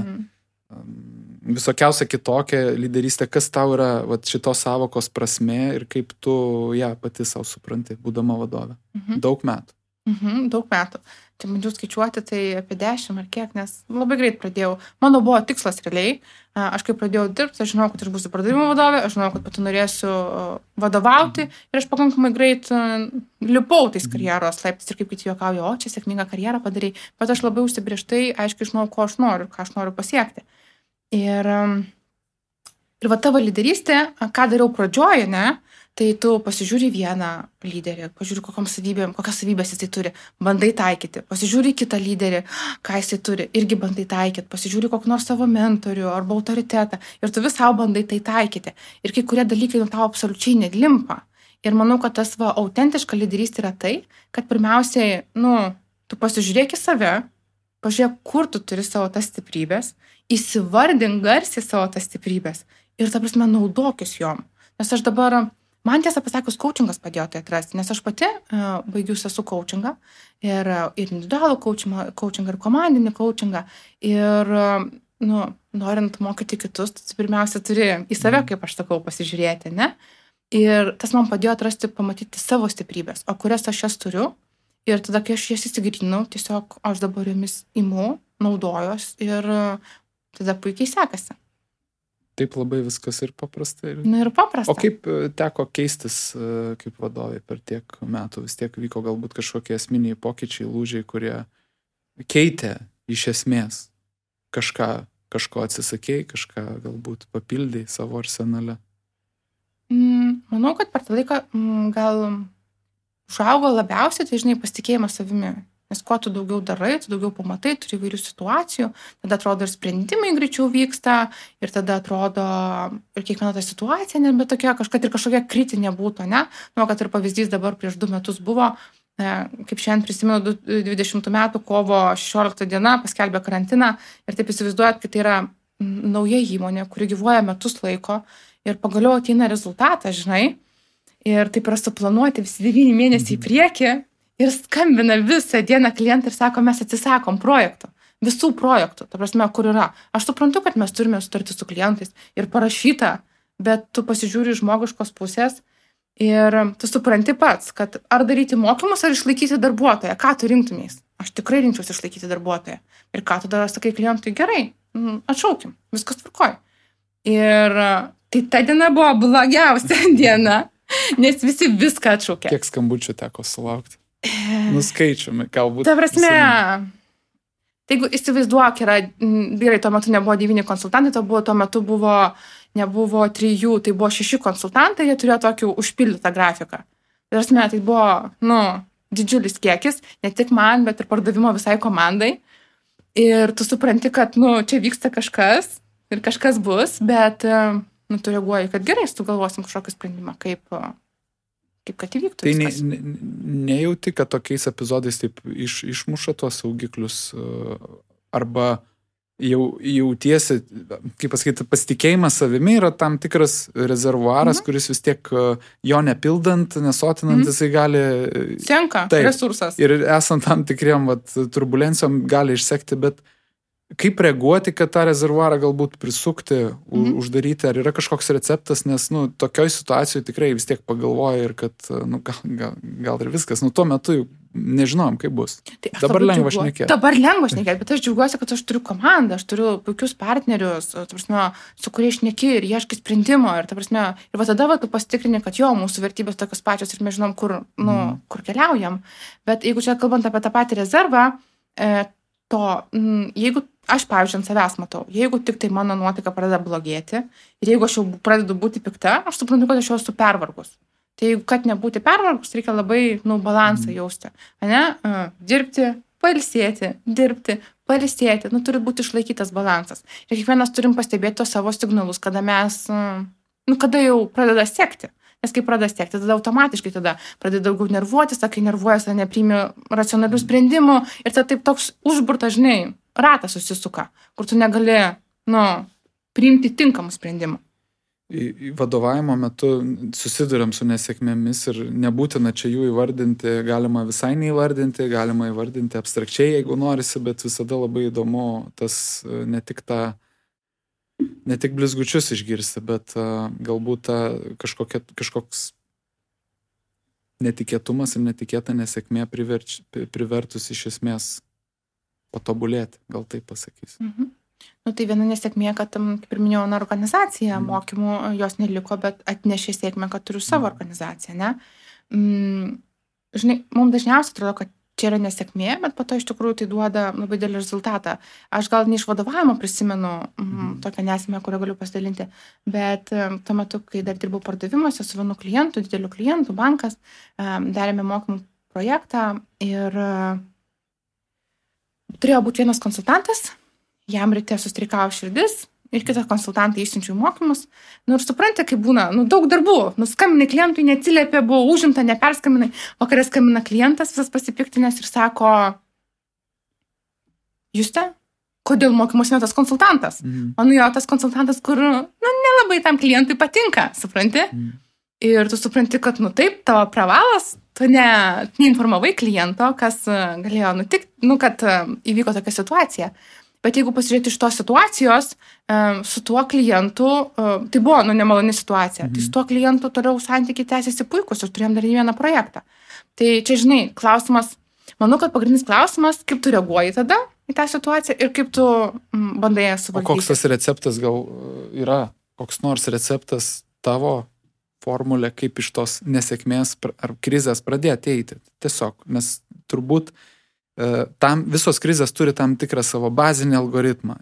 visokiausia kitokia lyderystė. Kas tau yra šitos savokos prasmė ir kaip tu ją pati savo supranti, būdama vadovė? Daug metų. Daug metų. Čia bandžiau skaičiuoti, tai apie 10 ar kiek, nes labai greit pradėjau. Mano buvo tikslas realiai. Aš kai pradėjau dirbti, aš žinau, kad aš būsiu pardavimo vadovė, aš žinau, kad pati norėsiu vadovauti ir aš pakankamai greit lipau tais karjeros laiptais ir kaip kiti juokauja, čia sėkmingą karjerą padarai, bet aš labai užsibrėžtai aiškiai žinau, ko aš noriu, ką aš noriu pasiekti. Ir va tavo lyderystė, ką dariau pradžioje, tai tu pasižiūri vieną lyderį, pažiūri, kokias savybės jisai turi, bandai taikyti, pasižiūri kitą lyderį, ką jisai turi, irgi bandai taikyti, pasižiūri kokį nors savo mentorių arba autoritetą ir tu vis savo bandai tai taikyti. Ir kai kurie dalykai tau absoliučiai nelimpa. Ir manau, kad tas autentiška lyderystė yra tai, kad pirmiausiai, tu pasižiūrėk į save, pažiūrėk, kur tu turi savo tas stiprybės, įsivardink garsiai savo tas stiprybės ir, ta prasme, naudokis jom. Nes aš dabar man tiesą pasakius, coachingas padėjo tai atrasti, nes aš pati baigiusi esu coachingą ir individualų coachingą ir komandinį coachingą ir, norint mokyti kitus, tu pirmiausia turi į save, kaip aš sakau, pasižiūrėti, Ir tas man padėjo atrasti, pamatyti savo stiprybės, o kurias aš jas turiu. Ir tada, kai aš jas įsigryninau, tiesiog aš dabar jomis imu, naudojos ir tada puikiai sekasi. Taip labai viskas ir paprasta. Ir paprasta. O kaip teko keistis kaip vadovai per tiek metų? Vis tiek vyko galbūt kažkokie esminiai pokyčiai, lūžiai, kurie keitė iš esmės kažko atsisakėjai, kažką galbūt papildėjai savo arsenale. Manau, kad per tą laiką gal užaugo labiausiai, tai žinai, pasitikėjimas savimi. Nes kuo tu daugiau darai, tu daugiau pamatai, turi įvairių situacijų, tada atrodo ir sprendimai greičiau vyksta, ir tada atrodo ir kiekviena ta situacija nebe tokia, kažkokia kritinė būtų, ne? Nu, kad ir pavyzdys dabar prieš 2 metus buvo, kaip šiandien prisimenu, 20 metų kovo 16 diena paskelbė karantiną ir taip įsivaizduojat, kad tai yra nauja įmonė, kuri gyvuoja metus laiko ir pagaliau ateina rezultatas, žinai, ir taip yra suplanuoti visi 9 mėnesiai į priekį ir skambina visą dieną klientą ir sako, mes atsisakom projektų, visų projektų, ta prasme, kur yra. Aš suprantu, kad mes turime sutartį su klientais ir parašyta, bet tu pasižiūri žmogiškos pusės ir tu supranti pats, kad ar daryti mokymus, ar išlaikyti darbuotoją, ką tu rinktumės. Aš tikrai rinkčiausi išlaikyti darbuotoją. Ir ką tada sakai klientui, gerai, atšaukim, viskas tvarkoj. Ir tai ta diena buvo blogiausia diena, nes visi viską atšaukė. Kiek skambučių teko sulaukti? Nuskaičiumi, galbūt. Ta prasme, jeigu įsivaizduok, vyrai tuo metu nebuvo 9 konsultantai, tuo metu nebuvo 3, tai buvo 6 konsultantai, jie turėjo tokį užpildytą grafiką. Ta prasme, tai buvo, didžiulis kiekis, ne tik man, bet ir pardavimo visai komandai. Ir tu supranti, kad, čia vyksta kažkas ir kažkas bus, bet, tu reaguoji, kad gerai, tu galvosim kažkokį sprendimą, kaip kad įvyktų viskas. Tai nejauti, kad tokiais epizodais taip išmuša tuos saugiklius arba jautiesi, kaip pasakyti, pasitikėjimas savimi yra tam tikras rezervuaras, kuris vis tiek jo nepildant, nesotinant, jisai gali... Senka resursas. Ir esant tam tikriem turbulencijom gali išsekti, bet kaip reaguoti, kad tą rezervuarą galbūt prisukti, uždaryti, ar yra kažkoks receptas, nes, tokioj situacijoje tikrai vis tiek pagalvoja ir kad, gal ir viskas, tuo metu jau nežinojom, kaip bus. Tai dabar lengva šnekėti. Bet aš džiaugiuosi, kad aš turiu komandą, aš turiu puikius partnerius, su kuriais šneki ir ieškai sprendimo. Ir tada tu pasitikrini, kad mūsų vertybės tokios pačios ir mes žinom, kur keliaujam. Bet jeigu čia kalbant apie tą patį rezervą, jeigu aš, pavyzdžiui, ant savęs matau, jeigu tik tai mano nuotaika pradeda blogėti ir jeigu aš jau pradedu būti pikta, aš suprantu, kad aš jau esu pervargus. Tai jeigu kad nebūti pervargus, reikia labai, balansą jausti. Dirbti, pailsėti, dirbti, pailsėti. Turi būti išlaikytas balansas. Ir kiekvienas turim pastebėti tos savo signalus, kada mes, kada jau pradeda sekti. Nes kai pradeda sekti, tada automatiškai pradeda daugiau nervuotis, kai nervuojas, nepriimi racionalių sprendimų ir tada taip toks užburtas, žinai, ratas susisuka, kur tu negali, priimti tinkamų sprendimų. Vadovavimo metu susiduriam su nesėkmėmis ir nebūtina čia jų įvardinti, galima visai neįvardinti, galima įvardinti abstrakčiai, jeigu norisi, bet visada labai įdomu tas ne tik blizgučius išgirsti, bet galbūt kažkoks netikėtumas ir netikėta nesėkmė privertus iš esmės patobulėti, gal taip pasakys. Tai viena nesėkmė, kad, kaip ir minėjau, organizacija mokymų jos neliko, bet atnešė sėkmę, kad turiu savo organizaciją, ne? Žinai, mums dažniausiai atrodo, kad čia yra nesėkmė, bet po to iš tikrųjų tai duoda labai didelį rezultatą. Aš gal ne iš vadovavimo prisimenu tokią nesėkmę, kurią galiu pasidalinti, bet tuo metu, kai dar dirbau pardavimuose su vienu klientu, dideliu klientu, bankas, darėme mokymų projektą ir turėjo būti vienas konsultantas, jam ryte sustrikavo širdis ir kitą konsultantą išsiunčiau mokymus. Ir supranti, kaip būna, daug darbų. Skambinai klientui, neatsiliepė, buvo užimta, neperskambinai. Vakarė skambina klientas, visas pasipiktinęs ir sako, Juste, kodėl mokymus ne tas konsultantas? Jo tas konsultantas, kur, nelabai tam klientui patinka, supranti? Ir tu supranti, kad, taip, tavo pravalas, tu neinformavai kliento, kas galėjo nutikti, kad įvyko tokia situacija. Bet jeigu pasižiūrėti iš tos situacijos, su tuo klientu, tai buvo, nemaloni situacija, tai su tuo klientu toliau santykiai tęsiasi puikus ir turėjom dar vieną projektą. Tai čia, žinai, klausimas, manau, kad pagrindinis klausimas, kaip tu reaguoji tada į tą situaciją ir kaip tu bandai ją suvaldyti. O koks tas receptas gal yra, koks nors receptas tavo formulė, kaip iš tos nesėkmės ar krizės pradėti eiti. Tiesiog, nes turbūt visos krizės turi tam tikrą savo bazinį algoritmą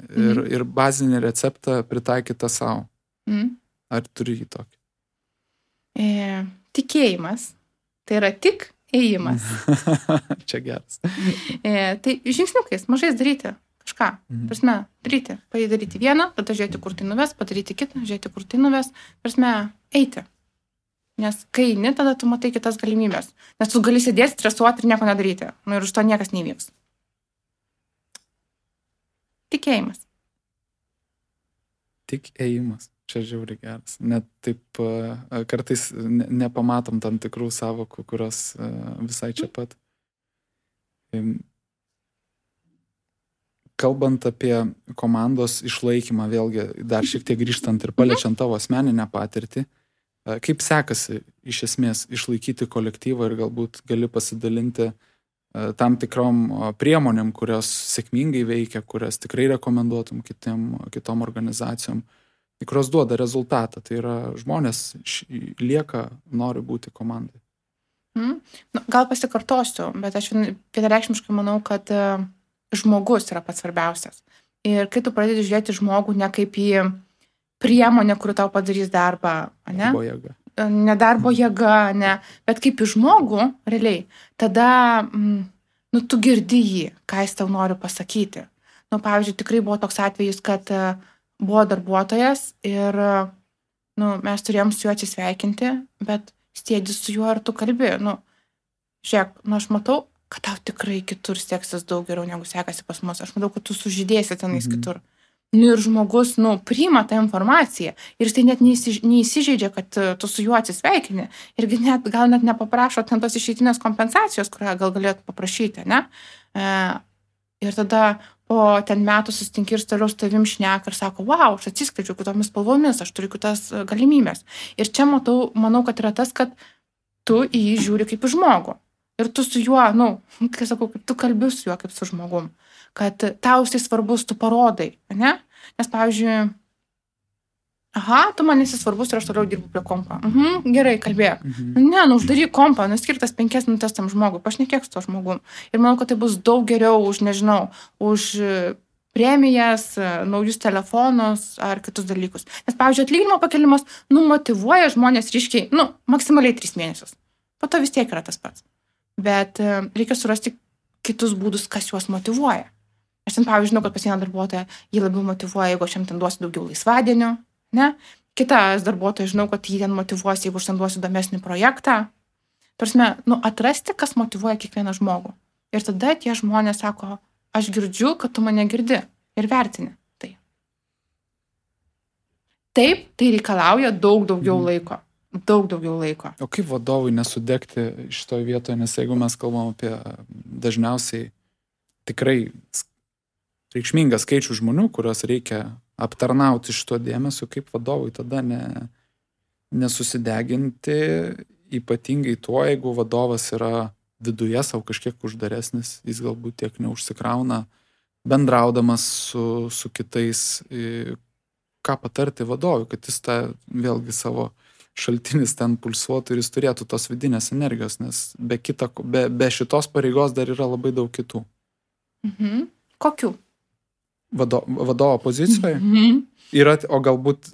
ir bazinį receptą pritaikytą savo. Ar turi jį tokį? Tikėjimas. Tai yra tik ėjimas. Čia geras. Tai žingsniukais, mažais daryti kažką. Prasme, daryti vieną, tada žiūrėti, kur tai nuves, padaryti kitą, žiūrėti, kur tai nuves. Prasme, eiti. Nes kai eini, tada tu matai kitas galimybės. Nes tu gali sėdėti, stresuoti ir nieko nedaryti. Ir už to niekas nevyks. Tikėjimas. Tik ėjimas. Čia žiauriai geras. Net taip kartais nepamatom tam tikrų savokų, kurios visai čia pat. Kalbant apie komandos išlaikymą, vėlgi dar šiek tiek grįžtant ir paliečiant tavo asmeninę patirtį, kaip sekasi iš esmės išlaikyti kolektyvą ir galbūt gali pasidalinti tam tikrom priemonėm, kurios sėkmingai veikia, kurias tikrai rekomenduotum kitom organizacijom, kurios duoda rezultatą. Tai yra žmonės lieka, nori būti komandai. Gal pasikartosiu, bet aš vienareikšmiškai manau, kad žmogus yra pats svarbiausias. Ir kai tu pradedi žiūrėti žmogų ne kaip į priemonę, kuri tau padarys darbą, ne? Darbo jėga. Ne darbo jėga, ne, bet kaip į žmogų, realiai, tada tu girdi jį, ką jis tau nori pasakyti. Pavyzdžiui, tikrai buvo toks atvejis, kad buvo darbuotojas ir mes turėjom su juo atsisveikinti, bet sėdi su juo ir tu kalbi. Žiūrėk, aš matau, kad tau tikrai kitur seksis daug geriau, negu sekasi pas mus. Aš matau, kad tu sužydėsi tenais kitur. Ir žmogus, priima tą informaciją ir jis tai net neįsižeidžia, kad tu su juo atsisveikini. Irgi gal net nepaprašo ten tos išeitinės kompensacijos, kurią gal galėtų paprašyti, ne? Ir tada po ten metų susitinki ir toliau su tavim šneka ir sako, wow, aš atsiskleidžiu kitomis spalvomis, aš turiu kitas galimybės. Ir čia manau, kad yra tas, kad tu į jį žiūri kaip į žmogų. Ir tu su juo, kai sakau, kaip tu kalbi su juo kaip su žmogum. Kad tau jisai svarbus, tu parodai, ne? Nes, pavyzdžiui, tu man esi svarbus ir aš toliau dirbu prie kompo. Gerai, kalbėk. Ne, uždaryk kompą, skirtas 5 minutės tam žmogui, pašnekėk su to žmogum. Ir manau, kad tai bus daug geriau už, nežinau, už premijas, naujus telefonus ar kitus dalykus. Nes, pavyzdžiui, atlyginimo pakelimas, motyvuoja žmonės ryškiai, maksimaliai 3 mėnesius. Po to vis tiek yra tas pats. Bet reikia surasti kitus būdus, kas juos motyvuoja. Aš ten, pavyzdžiui, žinau, kad pas vieną darbuotoją jį labiau motyvuoja, jeigu aš jam ten duosiu daugiau laisvadienių, ne? Kitas darbuotojas, žinau, kad jį ten motyvuos, jeigu aš ten duosiu įdomesnį projektą. Tarsime, atrasti, kas motyvuoja kiekvieną žmogų. Ir tada tie žmonės sako, aš girdžiu, kad tu mane girdi ir vertini tai. Taip, tai reikalauja daug daugiau laiko. Daug daugiau laiko. O kaip vadovui nesudegti šitoje vietoje, nes jeigu mes kalbam apie dažniausiai tikrai reikšmingą skaičių žmonių, kurios reikia aptarnauti šito dėmesio, kaip vadovui tada nesusideginti, ypatingai tuo, jeigu vadovas yra viduje savo kažkiek uždaresnis, jis galbūt tiek neužsikrauna, bendraudamas su kitais, ką patarti vadovui, kad jis tą vėlgi savo šaltinis ten pulsuotų ir jis turėtų tos vidinės energijos, nes be šitos pareigos dar yra labai daug kitų. Kokių? Vadovo pozicijoje? Yra, o galbūt,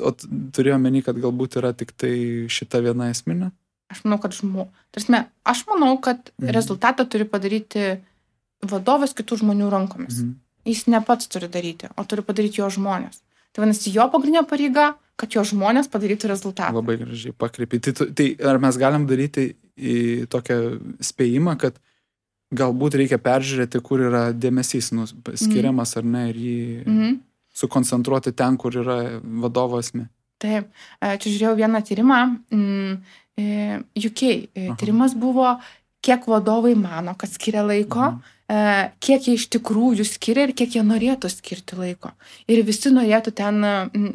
turėjau meni, kad galbūt yra tik tai šita viena esminė? Aš manau, kad rezultatą turi padaryti vadovas kitų žmonių rankomis. Jis ne pats turi daryti, o turi padaryti jo žmonės. Tai vadinasi, jo pagrindinė pareiga, kad jo žmonės padarytų rezultatą. Labai gražiai pakreipi. Tai ar mes galim daryti į tokią spėjimą, kad galbūt reikia peržiūrėti, kur yra dėmesys skiriamas ar ne, ir jį sukoncentruoti ten, kur yra vadovo esmė. Taip. Čia žiūrėjau vieną tyrimą. UK. Tyrimas buvo, kiek vadovai mano, kad skiria laiko kiek jie iš tikrųjų skiria ir kiek jie norėtų skirti laiko. Ir visi norėtų ten,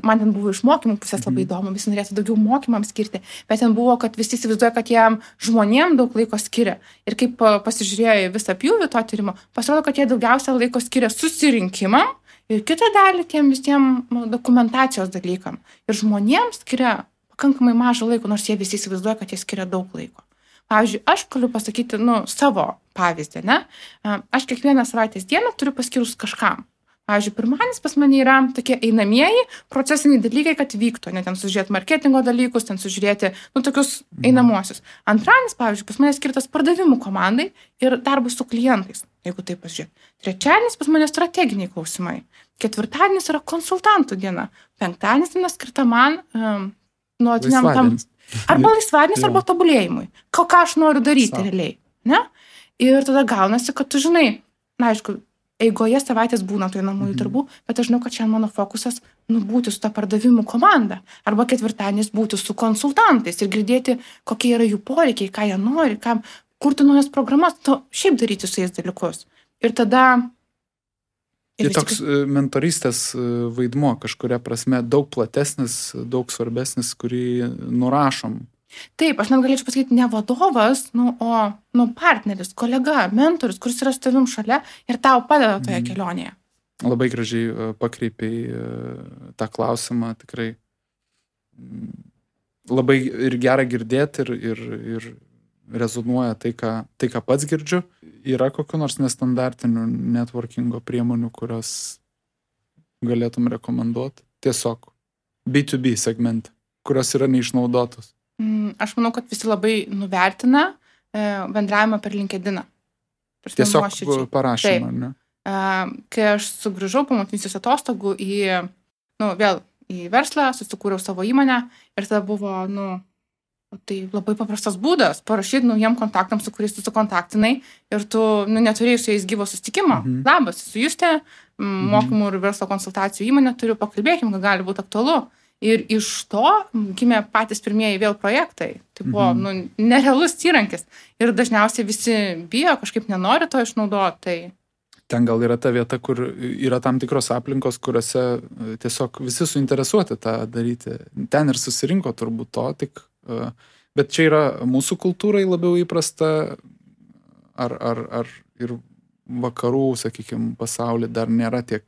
man ten buvo iš mokymų pusės labai įdomu, visi norėtų daugiau mokymams skirti, bet ten buvo, kad visi įsivaizduoja, kad jiem žmonėm daug laiko skiria. Ir kaip pasižiūrėjo į visą pjūvį to tyrimo, pasirodo, kad jie daugiausia laiko skiria susirinkimam ir kitą dalį tiem visiems dokumentacijos dalykam. Ir žmonėms skiria pakankamai mažą laiko, nors jie visi įsivaizduoja, kad jie skiria daug laiko. Pavyzdžiui, aš galiu pasakyti, savo pavyzdį, ne? Aš kiekvieną savaitės dieną turiu paskirus kažkam. Pavyzdžiui, pirmadienis pas mane yra tokie einamieji procesiniai dalykai, kad vyktų, ne ten sužiūrėti marketingo dalykus, ten sužiūrėti, tokius einamuosius. Antradienis, pavyzdžiui, pas mane skirtas pardavimų komandai ir darbui su klientais, jeigu taip pasižiūrėti. Trečiadienis pas mane strateginiai klausimai. Ketvirtadienis yra konsultantų diena. Penktadienis diena skirta man nuolatiniam tam. Arba laisvadienis, arba tobulėjimui. Ką aš noriu daryti realiai. Ne? Ir tada gaunasi, kad tu žinai, aišku, eigoje savaitės būna tų einamųjų darbų, bet aš žinau, kad šiandien mano fokusas būti su ta pardavimų komanda. Arba ketvirtadienis būti su konsultantais ir girdėti, kokie yra jų poreikiai, ką jie nori, kurti naujas programas, šiaip daryti su jais dalykus. Ir tada... Ir toks mentorystės vaidmuo kažkuria prasme daug platesnis, daug svarbesnis, kurį nurašom. Taip, aš net galėčiau pasakyti ne vadovas, o partneris, kolega, mentorius, kuris yra su tavim šalia ir tau padeda toje kelionėje. Labai gražiai pakreipiai tą klausimą, tikrai labai ir gera girdėti ir rezonuoja tai, ką pats girdžiu. Yra kokių nors nestandartinių networkingo priemonių, kurios galėtum rekomenduoti? Tiesiog B2B segmente, kurios yra neišnaudotos. Aš manau, kad visi labai nuvertina bendravimą per LinkedIną. Tiesiog parašymą, ne? Kai aš sugrįžau po motinystės atostogų vėl į verslą, susikūriau savo įmonę ir tada buvo, tai labai paprastas būdas parašyti naujiem kontaktams, su kuriais tu sukontaktinai ir tu neturėjai su jais gyvo susitikimo. Labas, su Justė, mokymų ir verslo konsultacijų įmonė turiu, pakalbėkim, kad gali būti aktualu. Ir iš to gimė patys pirmieji vėl projektai. Tai buvo nerealus įrankis. Ir dažniausiai visi bijo, kažkaip nenori to išnaudoti. Tai... Ten gal yra ta vieta, kur yra tam tikros aplinkos, kuriuose tiesiog visi suinteresuoti tą daryti. Ten ir susirinko turbūt to, bet čia yra mūsų kultūrai labiau įprasta, ar ir vakarų, sakykime, pasaulyje dar nėra tiek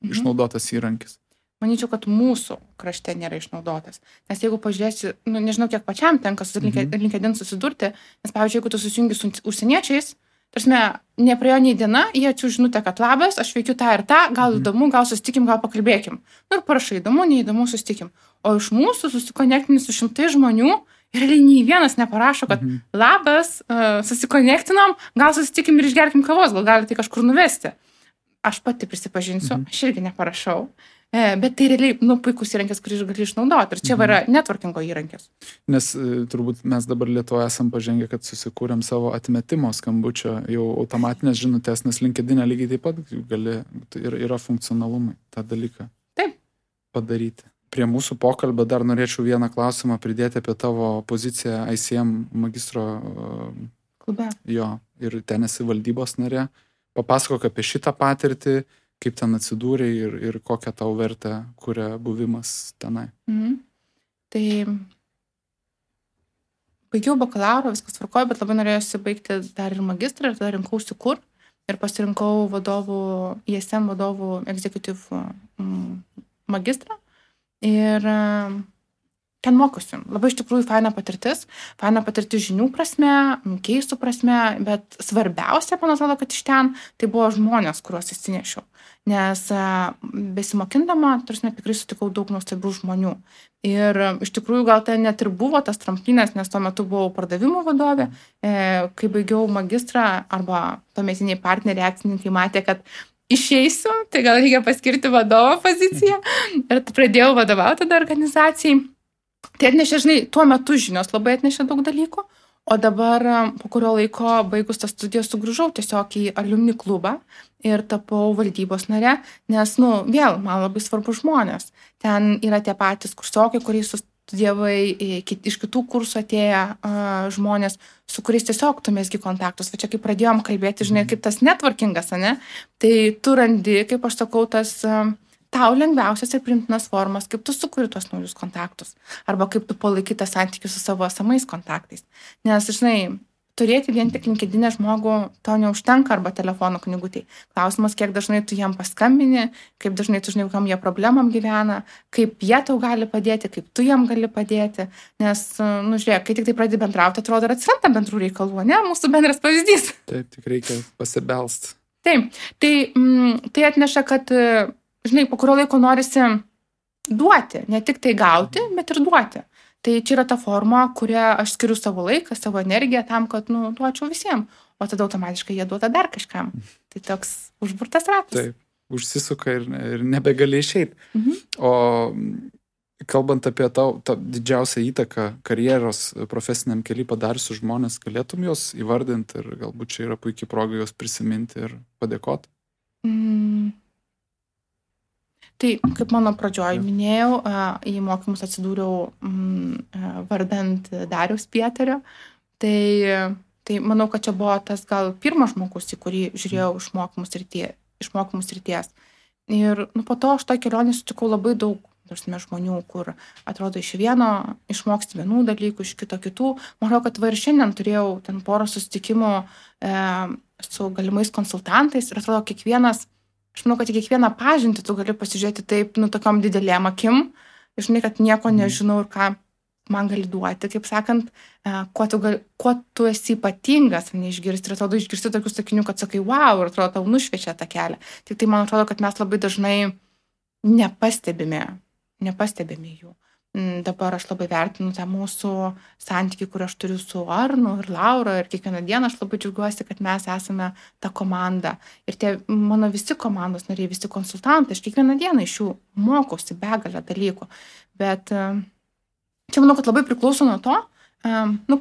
išnaudotas įrankis. Manyčiau, kad mūsų krašte nėra išnaudotas. Nes jeigu pažiūrėsi, nežinau, kiek pačiam tenka su LinkedIn susidurti, nes, pavyzdžiui, jeigu tu susijungi su užsieniečiais, tarsi nepraėjo nei diena, jie atsiųs žinutę, kad labas, aš veikiu tą ir tą, gal įdomu, gal susitikim, gal pakalbėkim. Ir parašai, įdomu, neįdomu, susitikim. O iš mūsų susikonektinį su 100 žmonių ir nei vienas neparašo, kad labas, susikonektinom, gal susitikim ir išgerkim kavos, gal galite kažkur nuvesti. Aš pati prisipažinsiu, aš irgi neparašau. Bet tai realiai, puikus įrankis, kurį gali išnaudoti. Ir čia yra networkingo įrankis. Nes turbūt mes dabar Lietuvoje esam pažengę, kad susikūrėm savo atmetimo skambučio jau automatinės žinutės, nes LinkedIn lygiai taip pat gali, ir yra funkcionalumai tą dalyką padaryti. Prie mūsų pokalbio dar norėčiau vieną klausimą pridėti apie tavo poziciją ICM magistro klube. Jo, ir ten esi valdybos narė. Papasakok apie šitą patirtį, kaip ten atsidūrė ir kokią tau vertę kuria buvimas tenai. Tai baigiau bakalauro, viskas tvarkojo, bet labai norėjusi baigti dar ir magistrą ir tada rinkausi kur. Ir pasirinkau ISM vadovų executive magistrą. Ir ten mokiausi. Labai iš tikrųjų faina patirtis žinių prasme, keistų prasme, bet svarbiausia, man atrodo, kad iš ten tai buvo žmonės, kuriuos įsinešiau. Nes besimokindama, tikrai sutikau daug nuostabių žmonių. Ir iš tikrųjų gal tai net ir buvo tas tramplinas, nes tuo metu buvau pardavimų vadovė. Kai baigiau magistrą arba tuometiniai partneriai, akcininkai matė, kad išeisiu, tai gal reikia paskirti vadovo poziciją. Ir pradėjau vadovauti tada organizacijai. Tai atnešė, tuo metu žinios labai atnešė daug dalykų, o dabar po kurio laiko baigus tas studijas sugrįžau tiesiog į alumni klubą ir tapau valdybos nare, nes, vėl, man labai svarbu žmonės. Ten yra tie patys kursiokai, kuriais studijavai iš kitų kursų atėję žmonės, su kuriais tiesiog tu mesgi kontaktus. Va čia kaip pradėjom kalbėti, žinai, kaip tas networkingas, ane? Tai tu randi, kaip aš sakau, tas tau lengviausias ir priimtinas formas, kaip tu sukuri tuos naujus kontaktus. Arba kaip tu palaikai tą santykių su savo esamais kontaktais. Nes, žinai, turėti vien tik LinkedIn žmogų to neužtenka arba telefonų knygutėj. Klausimas, kiek dažnai tu jam paskambini, kaip dažnai tu žinai, kokiam jie problemam gyvena, kaip jie tau gali padėti, kaip tu jam gali padėti. Nes, nu žiūrėk, kai tik tai pradedi bendrauti, atrodo, ir atsiranda bendrų reikalų, ne? Mūsų bendras pavyzdys. Taip, tik reikia pasibelst. Taip, tai atneša, kad, žinai, po kurio laiko norisi duoti, ne tik tai gauti, bet ir duoti. Tai čia yra ta forma, kurią aš skiriu savo laiką, savo energiją tam, kad, nu, duočiau visiems. O tada automatiškai jie duoda dar kažkam. Tai toks užburtas ratas. Taip, užsisuka ir nebegali išeiti. O kalbant apie tau didžiausią įtaką karjeros profesiniam kely padariusius žmonės, galėtum juos įvardinti ir galbūt čia yra puikiai proga juos prisiminti ir padėkoti? Tai, kaip mano pradžioj minėjau, į mokymus atsidūriau vardant Dariaus Pieterio. Tai manau, kad čia buvo tas gal pirmas žmogus, į kurį žiūrėjau iš mokymų srities. Ir po to aš toj kelionį sutikau labai daug žmonių, kur atrodo iš vieno išmoksti vienų dalykų, iš kito kitų. Manau, kad ir šiandien turėjau ten porą susitikimų su galimais konsultantais ir atrodo aš manau, kad į kiekvieną pažintį tu gali pasižiūrėti taip, tokiom didelėm akim, žinai, kad nieko nežinau ir ką man gali duoti, kaip sakant, kuo tu esi ypatingas, neišgirsti. Ir atrodo, išgirsti tokių sakinių, kad sakai, wow, ir atrodo, tau nušviečia tą kelią. Tik tai man atrodo, kad mes labai dažnai nepastebime jų. Dabar aš labai vertinu tą mūsų santykį, kurį aš turiu su Arnu ir Laura, ir kiekvieną dieną aš labai džiaugiuosi, kad mes esame ta komanda. Ir tie mano visi komandos nariai, visi konsultantai, aš kiekvieną dieną iš jų mokausi begalę dalykų. Bet čia manau, kad labai priklauso nuo to,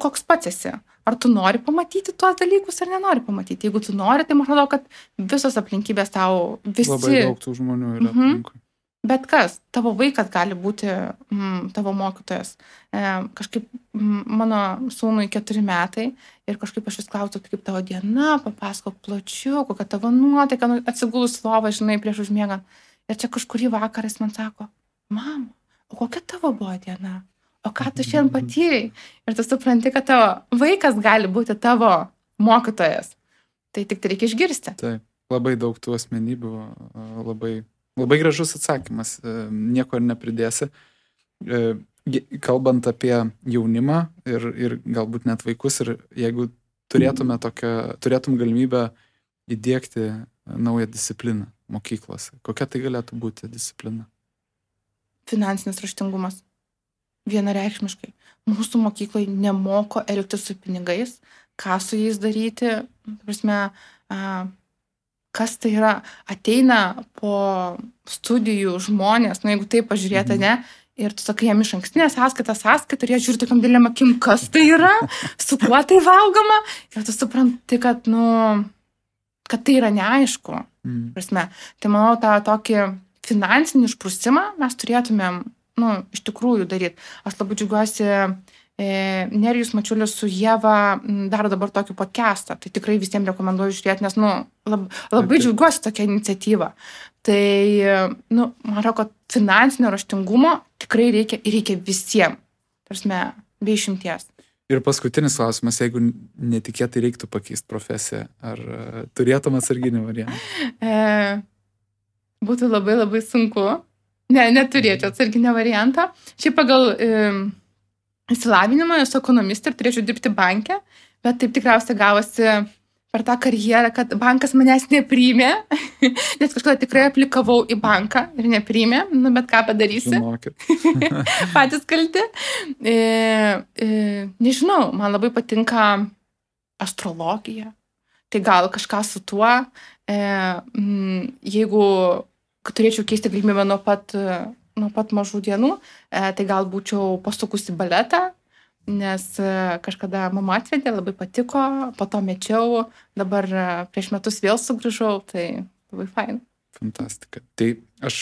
koks pats esi. Ar tu nori pamatyti tuos dalykus, ar nenori pamatyti. Jeigu tu nori, tai man atrodo, kad visos aplinkybės tau visi... Labai daug tų žmonių yra aplinkui. Bet kas, tavo vaikas gali būti tavo mokytojas. Kažkaip mano sūnui 4 metai ir kažkaip aš vis klausiu, kaip tavo diena, papasakok plačiau, kokia tavo nuotaika, atsigulus lovą, žinai, prieš užmiegant. Ir čia kažkurį vakarą jis man sako, mama, o kokia tavo buvo diena? O ką tu šiandien patyrei? Ir tu supranti, kad tavo vaikas gali būti tavo mokytojas. Tai tik tai reikia išgirsti. Taip, labai daug tų asmenybių, Labai gražus atsakymas, nieko ir nepridėsi. Kalbant apie jaunimą ir galbūt net vaikus, ir jeigu turėtum galimybę įdiegti naują discipliną mokyklose, kokia tai galėtų būti disciplina? Finansinis raštingumas. Vienareikšmiškai. Mūsų mokyklai nemoko elgtis su pinigais, ką su jais daryti, kas tai yra, ateina po studijų žmonės, jeigu taip pažiūrėta, ne, ir tu sakai jam iš ankstinę sąskaitą, ir jie žiūri tokiam dėlėm akim, kas tai yra, su kuo tai valgoma, ir tu supranti, kad tai yra neaišku. Tai manau, tą tokį finansinį išprusimą mes turėtumėm, iš tikrųjų daryti. Aš labai džiaugiuosi, Nerijus Mačiulis su Ieva daro dabar tokį podcastą. Tai tikrai visiems rekomenduoju žiūrėti, nes labai džiaugiuosi tokia iniciatyva. Tai, man atrodo, kad finansinio raštingumo tikrai reikia visiems. Be išimties. Ir paskutinis klausimas, jeigu netikėtai reiktų pakeisti profesiją, ar turėtum atsarginį variantą? Būtų labai labai sunku. Neturėčiau atsarginio variantą. Šiaip pagal... Įsilavinimą, esu ekonomistė ir turėčiau dirbti banke, bet taip tikriausiai gavosi per tą karjerą, kad bankas manęs nepriėmė, nes kažkada tikrai aplikavau į banką ir nepriėmė, bet ką padarysi? Patys kalti. Nežinau, man labai patinka astrologija, tai gal kažką su tuo, jeigu turėčiau keisti galimybę nuo pat mažų dienų, tai gal būčiau pasukusi baletą, nes kažkada mama atvedė, labai patiko, po to mečiau, dabar prieš metus vėl sugrįžau, tai labai fain. Fantastika. Tai aš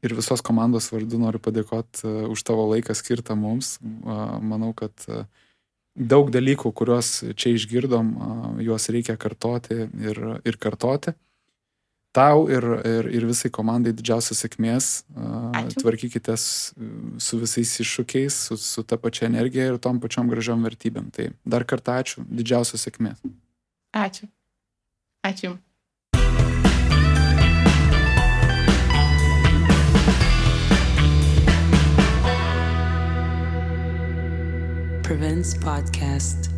ir visos komandos vardu noriu padėkoti už tavo laiką skirtą mums. Manau, kad daug dalykų, kuriuos čia išgirdom, juos reikia kartoti ir kartoti. Tau ir visai komandai didžiausios sėkmės. Tvarkykitės su visais iššūkiais, su ta pačia energija ir tom pačiom gražiom vertybėm. Tai dar kartą ačiū, didžiausios sėkmės. Ačiū. Ačiū. Prevents Podcast.